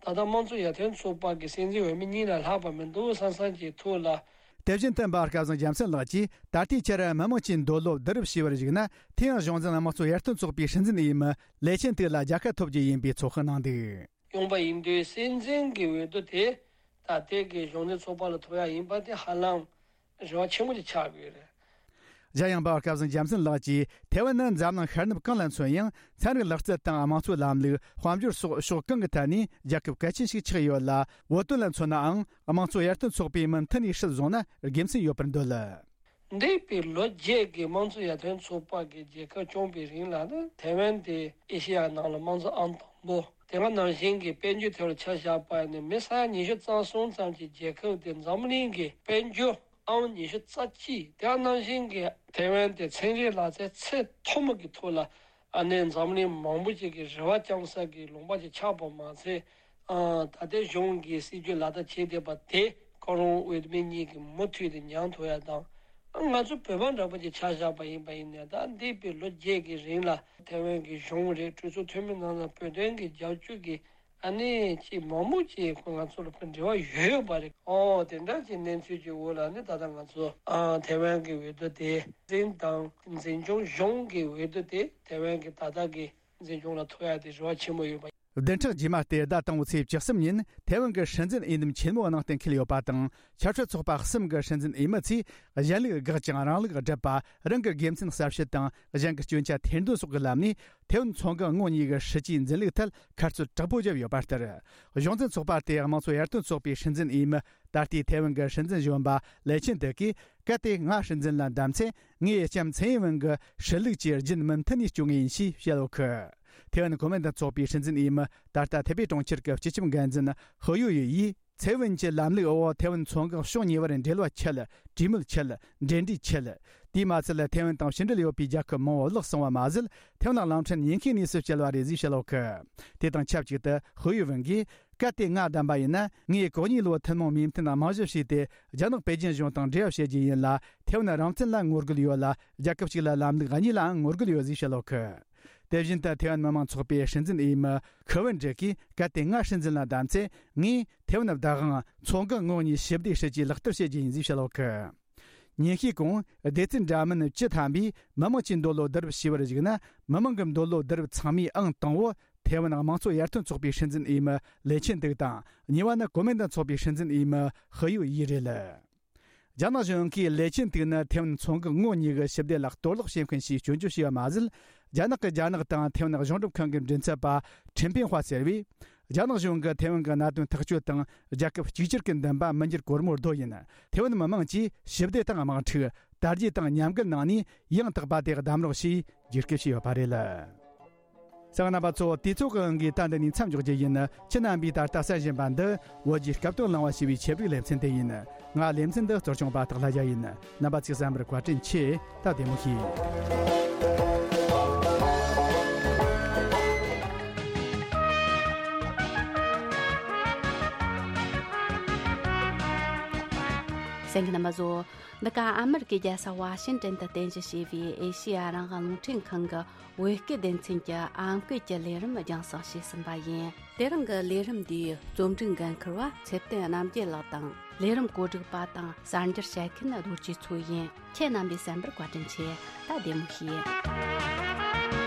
ད་ལྟ་དམངས་གཙོ་ཡར་ཐོན་ཚོགས་པ་གི་སྲིད་འཛིན་འོས་མི་གཉིས་ལས་ལྷག་པ་མི་འདུག་བསམ་བསམ་གྱི་ཐོག་ལ། དེ་བཞིན་དུ་འབའ་སྐལ་བཟང་རྒྱལ་མཚན་ལགས་ཀྱིས་ད་ལྟའི་ཆར་མི་དམངས་ཀྱི་འདོད་བློ་བསྡུ་རུབ་བྱས་པར་གཞིགས་ན། དེ་ཡང་གཞུང་འཛིན་དམངས་གཙོ་ཡར་ཐོན་ཚོགས་པའི་སྲིད་འཛིན་འོས་མི་ལེ་ཆིན་ཏེ་ལ་རྒྱལ་ཁ་ཐོབ་རྒྱུ་ཡིན་པའི་ཚོད་དཔག་གནང་འདུག། ཡོང་པ་ཡིན་དུས་སྲིད་འཛིན་གྱི་འོས་བསྡུ་དེ་ད་ལྟའི་གི་གཞུང་འཛིན་ཚོགས་པ་ལ་ཐོབ་ཡ་ཡིན་པ་དེ་ཧ་ལམ་རེ་བ་ཆེན་པོ་ཅིག་ཆགས་ཀྱི་ཡོད་རེད། གཞན་ཡང་འབའ་སྐལ་བཟང་རྒྱལ་མཚན་ལགས་ཀྱིས་ཐའེ་ཝན་ནི་འཛམ་གླིང་ཤར་ནུབ་གང་ལ་མཚོན་ཡང་ཚན་རིག་ལག་རྩལ་དང་དམངས་གཙོའི་ལམ་ལུགས། དཔལ་འབྱོར་སོགས་ཕྱོགས་གང་གི་ཐད་ནས་རྒྱལ་ཁབ་གལ་ཆེན་ཞིག་ཆགས་ཡོད་ལ། བོད་དོན་ལ་མཚོན་ནའང་དམངས་གཙོ་ཡར་ཐོན་ཚོགས་པས་མུ་མཐུད་ནས་སྲིད་བཟུང་ན་དགེ་མཚན་ཡོད་པར་འདོད། འདས་པའི་ལོ་བརྒྱད་ཀྱི་དམངས་གཙོ་ཡར་ཐོན་ཚོགས་པ་གི་རྒྱལ་ཁབ་སྐྱོང་བའི་རིང་ལ་ནི་ཐའེ་ཝན་དེ་ཨེ་ཤེ་ཡ་ནང་ལ་དམངས་གཙོ་ཨང་དང་པོ། དེ་ག་ནང་བཞིན་གྱི་དཔལ་འབྱོར་ཐོག་ལ་ཆ་བཞག་པ་ནི་མི་ས་ཡ་ཉི་ཤུ་རྩ་གསུམ་ཙམ་གྱི་རྒྱལ་ཁབ་དེ་འཛམ་གླིང་གི་དཔལ་འབྱོར་ཨང་ཉི་ཤུ་རྩ་གཅིག། དེ་ག་ནང་བཞིན་གྱི་ཐའེ་ཝན་དེ་ཚན་རིག་ལག་རྩལ་ཚད་མཐོ་མོ་གི་ཐོག་ལ་ཨ་ནི་འཛམ་གླིང་མང་པོ་ཅིག་གི་རེ་བ་བཅང་ས་གི་ལུང་པ་ཅིག་ཆགས་པ་མ་ཚད། ཨ། ད་ལྟའི་གཞུང་གི་སྲིད་ཇུས་ལག་བསྟར་བྱེད་བསྡད་པ་དེ་ཁོ་རང་འོས་མི་གཉིས་ཀྱིས་མུ་མཐུད་དུ་མྱངས་ཐུབ་ཡ་དང་། ཨ། ང་ཚོ་བོད་པ་འདྲ་པོ་ཅིག་ཆ་བཞག་པ་ཡིན་པ་ཡིན་ནའི་ད་འདས་པའི་ལོ་བརྒྱད་ཀྱི་རིང་ལ་ཐའེ་ཝན་གྱི་གཞུང་རེད། གྲོས་ཚོགས་འཐུས་མི་རྣམས་ལ་བོད་དོན་གྱི་རྒྱབ་སྐྱོར་གྱི་ཨ་ནི་ཅིག་མང་པོ་ཅིག་ཁོ་ང་ཚོ་ལ་ཁོ་འབྲེལ་བ་ཡོད་ཡོད་པ་རེད། ཨོ། དེ་འདྲ་ཅིག་གནས་ཚུལ་གྱི་འོག་ལ་ནི་ད་ལྟ་ང་ཚོ། ཨ། ཐའེ་ཝན་གྱི་འོས་བསྡུ་དེ་འཛིན་དང་འཛིན་སྐྱོང་གཞུང་གི་འོས་བསྡུ་དེ་ཐའེ་ཝན་གྱི་ད་ལྟ་གི་འཛིན་སྐྱོང་ལ་ཐོབ་ཡ་དེ་རེ་བ་ཆེན་པོ་ཡོད་པ། བདུན་ཕྲག་རྗེས་མ་སྟེ་ཟླ་དང་པོའི་ཚེས་བཅུ་གསུམ་ཉིན་ཐའེ་ཝན་གྱི་སྲིད་འཛིན་འོས་འདེམས་ཆེན་མོའི་ནང་གཏན་འཁེལ་ཡོད་པ་དང་། ཆབ་སྲིད་ཚོགས་པ་གསུམ་གྱི་སྲིད་འཛིན་འོས་མི་ཚོས་གཞན་ལུགས་དགག་ཅིང་རང་ལུགས་སྒྲུབ་པ། རང་གི་དགེ་མཚན་གསལ་བཤད་དང་གཞན་གྱི་སྐྱོན་ཆ་ཐེར་འདོན་སོགས་ཀྱི་ལམ་ནས་ཐའེ་ཝན་མཚོ་འགག་ངོགས་གཉིས་ཀྱི་སྲིད་ཇུས་འཛིན་ལུགས་ཐད་ཁ་རྩོད་དྲག་པོ་བརྒྱབ་ཡོད་པ་ལྟར། གཞུང་འཛིན་ཚོགས་པ་དེའི་དམངས་གཙོ་ཡར་ཐོན་ཚོགས་པའི་སྲིད་འཛིན་འོས་མི། ད་ལྟའི་ཐའེ་ཝན་གྱི་སྲིད་འཛིན་གཞོན་པ་ལེ་ཆིན་ཏེ་གིས། གལ་ཏེ་ང་སྲིད་འཛིན་ལ་བདམས་ཚེ། ངས་ལྕམ་ཚའེ་ཡིན་ཝེན་གྱི་སྲིད་ལུགས་ཀྱི་རྒྱུན་མུ་མཐུད་ནས་སྐྱོང་ངེས་ཡིན་ཞེས་བཤད་ཡོད་གི། ཐའེ་ཝན་གོ་མིན་ཏང་ཚོགས་པའི་སྲིད་འཛིན་འོས་མི་ད་ལྟ་ཐའེ་པེ་གྲོང་ཁྱེར་གྱི་སྤྱི་ཁྱབ་འགན་འཛིན་ཧུ་ཡུ་ཡུ་ཡིས། ཚའེ་ཝེན་གྱི་ལམ་ལུགས་འོག་ཐའེ་ཝན་མཚོ་འགག་ཕྱོགས་གཉིས་བར་འབྲེལ་བ་ཆད། གྲོས་མོལ་ཆད། འབྲེལ་འདྲིས་ཆད། དེས་མ་ཚད་ཐའེ་ཝན་དང་ཕྱི་འབྲེལ་ཡོད་པའི་རྒྱལ་ཁབ་མང་བོ་བརླག་སོང་བ་མ་ཟད། ཐའེ་ཝན་གླིང་ཕྲན་ཉེན་ཁའི་གནས་སུ་བསྐྱལ་བ་རེད་ཅེས་བཤད་ཡོད་གི། དེ་དང་ཆབས་ཅིག་ཏུ་ཧུ་ཡུ་ཝེན་གྱིས། གལ་ཏེ་ང་བདམས་པ་ཡིན་ན། ངས་གོ་གཉིས་ལོའི་ཐུན་མོང་མོས་མཐུན་རྨང་གཞི་བྱས་ཏེ། རྒྱ་ནག་པེ་ཅིན་གཞུང་དང་འབྲེལ་བ་བྱེད་རྒྱུ་ཡིན་ལ། ཐའེ་ཝན་རང་བཙན་ལ་ངོ་རྒོལ་ཡོད་ལ། རྒྱལ་ཁབ་གཅིག་ལ་ལམ་ལུགས་གཉིས་ལའང་ངོ་རྒོལ་ཡོད་ཅེས་བཤད་ཡོད་གི། དེ་བཞིན་དུ་ཐའེ་ཝན་མི་མང་ཚོགས་པའི་སྲིད་འཛིན་འོས་མི་ཁི་ཝུན་ཀྲིག་གིས། གལ་ཏེ་ང་སྲིད་འཛིན་ལ་བདམས་ཚེ། ངས་ཐའེ་ཝན་བདག་དབང་མཚོ་འགག་ངོགས་གཉིས་ཞི་བདེའི་སྲིད་ཇུས་ལག་བསྟར་བྱེད་རྒྱུ་ཡིན་ཅེས་བཤད་ཡོད་གི། ཉིན་ཤས་གོང་སྡེ་ཚན་འདྲ་མིན་བཅུ་ཐམ་པས་མི་དམངས་ཀྱི་འདོད་བློ་བསྡུ་རུབ་བྱས་པར་གཞིགས་ན། མི་དམངས་ཀྱི་འདོད་བློ་བསྡུ་རུབ་ཚང་མའི་ཨང་དང་པོ་ཐའེ་ཝན་དམངས་གཙོ་ཡར་ཐོན་ཚོགས་པའི་སྲིད་འཛིན་འོས་མི་ལེ་ཆིན་ཏིག་དང་། གཉིས་པ་ནི་གོ་མིན་ཏང་ཚོགས་པའི་སྲིད་འཛིན་འོས་མི་ཧི་ཡུ་ཡི་རེད། རྒྱ་ནག་གཞུང་གིས་ལེ་ཆིན་ཏིག་ནི་ཐའེ་ཝན་མཚོ་འགག་ངོགས་གཉིས་ཀྱི་ཞི་བདེ་ལ་གཏོར་བརླག་བྱེད་མཁན་ཞེས་སྐྱོན་བརྗོད་བྱས་པ་མ་ཟད། རྒྱ་ནག་གིས་རྒྱ་ནག་དང་ཐའེ་ཝན་གཞུང་སྒྲུབ་ཁང་གི་མགྲིན་ཚབ་པ་ཁྲིན་ཕིན་ཧྭ་ཟེར་བས། རྒྱ་ནག་གཞུང་གིས་ཐའེ་ཝན་གྱི་གནད་དོན་ཐག་གཅོད་དང་རྒྱལ་ཁབ་གཅིག་གྱུར་གྱི་འདུན་པ་མི་འགྱུར་གོར་མོར་རྡོ་ཡིན། ཐའེ་ཝན་མི་དམངས་ཀྱིས་ཞི་བདེ་དང་དམངས་ཁྲིད། དར་རྒྱས་དང་ཉམས་རྒུད་གནང་ནས་ཡང་དག་པ་དེ་གདམ་རོགས་ཞེས་རྒྱུགས་སྐུལ་བྱས་ཡོད་པ་རེད། གསན་མཁན་རྣམ་པ་ཚོ། དུས་ཚོད་ཀྱི་དབང་གིས་ད་འདི་ནས་མཚམས་འཇོག་རྒྱུ་ཡིན། ཁྱེད་རྣམ་པས་ད་ལྟ་གསན་བཞིན་པ་འདི་བོད་ཀྱི་སྐབས་དོན་གླེང་བ་ཞེས་པའི་ཆེད་སྒྲིག་ལེ་ཚན་དེ་ཡིན། ང་ལེ་ཚན་འདི་གཙོ་སྐྱོང་པ་སྟག་ལྷ་རྒྱལ་ཡིན། རྣམ་པ་ཚོས་གསན་པར་བཀའ་དྲིན་ཆེ། ད་བདེ་མོ་བྱོས། གསན་མཁན་རྣམ་པ་ཚོ། འདི་ག་ཨ་མི་རི་ཀའི་རྒྱལ་ས་ཝ་ཤིང་ཏན་དུ་རྟེན་གཞི་བྱས་པའི་ཨེ་ཤེ་ཡ་རང་དབང་རླུང་འཕྲིན་ཁང་གི་བོད་སྐད་སྡེ་ཚན་གྱི་ཨམ་སྐད་ཀྱི་ལས་རིམ་རྒྱང་སྲིང་བྱས་ཟིན་པ་ཡིན། དེ་རིང་གི་ལས་རིམ་འདིའི་རྩོམ་སྒྲིག་འགན་འཁུར་བ་ཚེ་བརྟན་རྣམ་རྒྱལ་ལགས་དང་། ལས་རིམ་གོ་སྒྲིག་པ་དང་གསར་འགྱུར་བཤད་མཁན་རྡོ་རྗེ་མཚོ་ཡིན། ཁྱེད་རྣམ་པས་གསན་པར་བཀའ་དྲིན་ཆེ། ད་བདེ་མོ་བྱོས།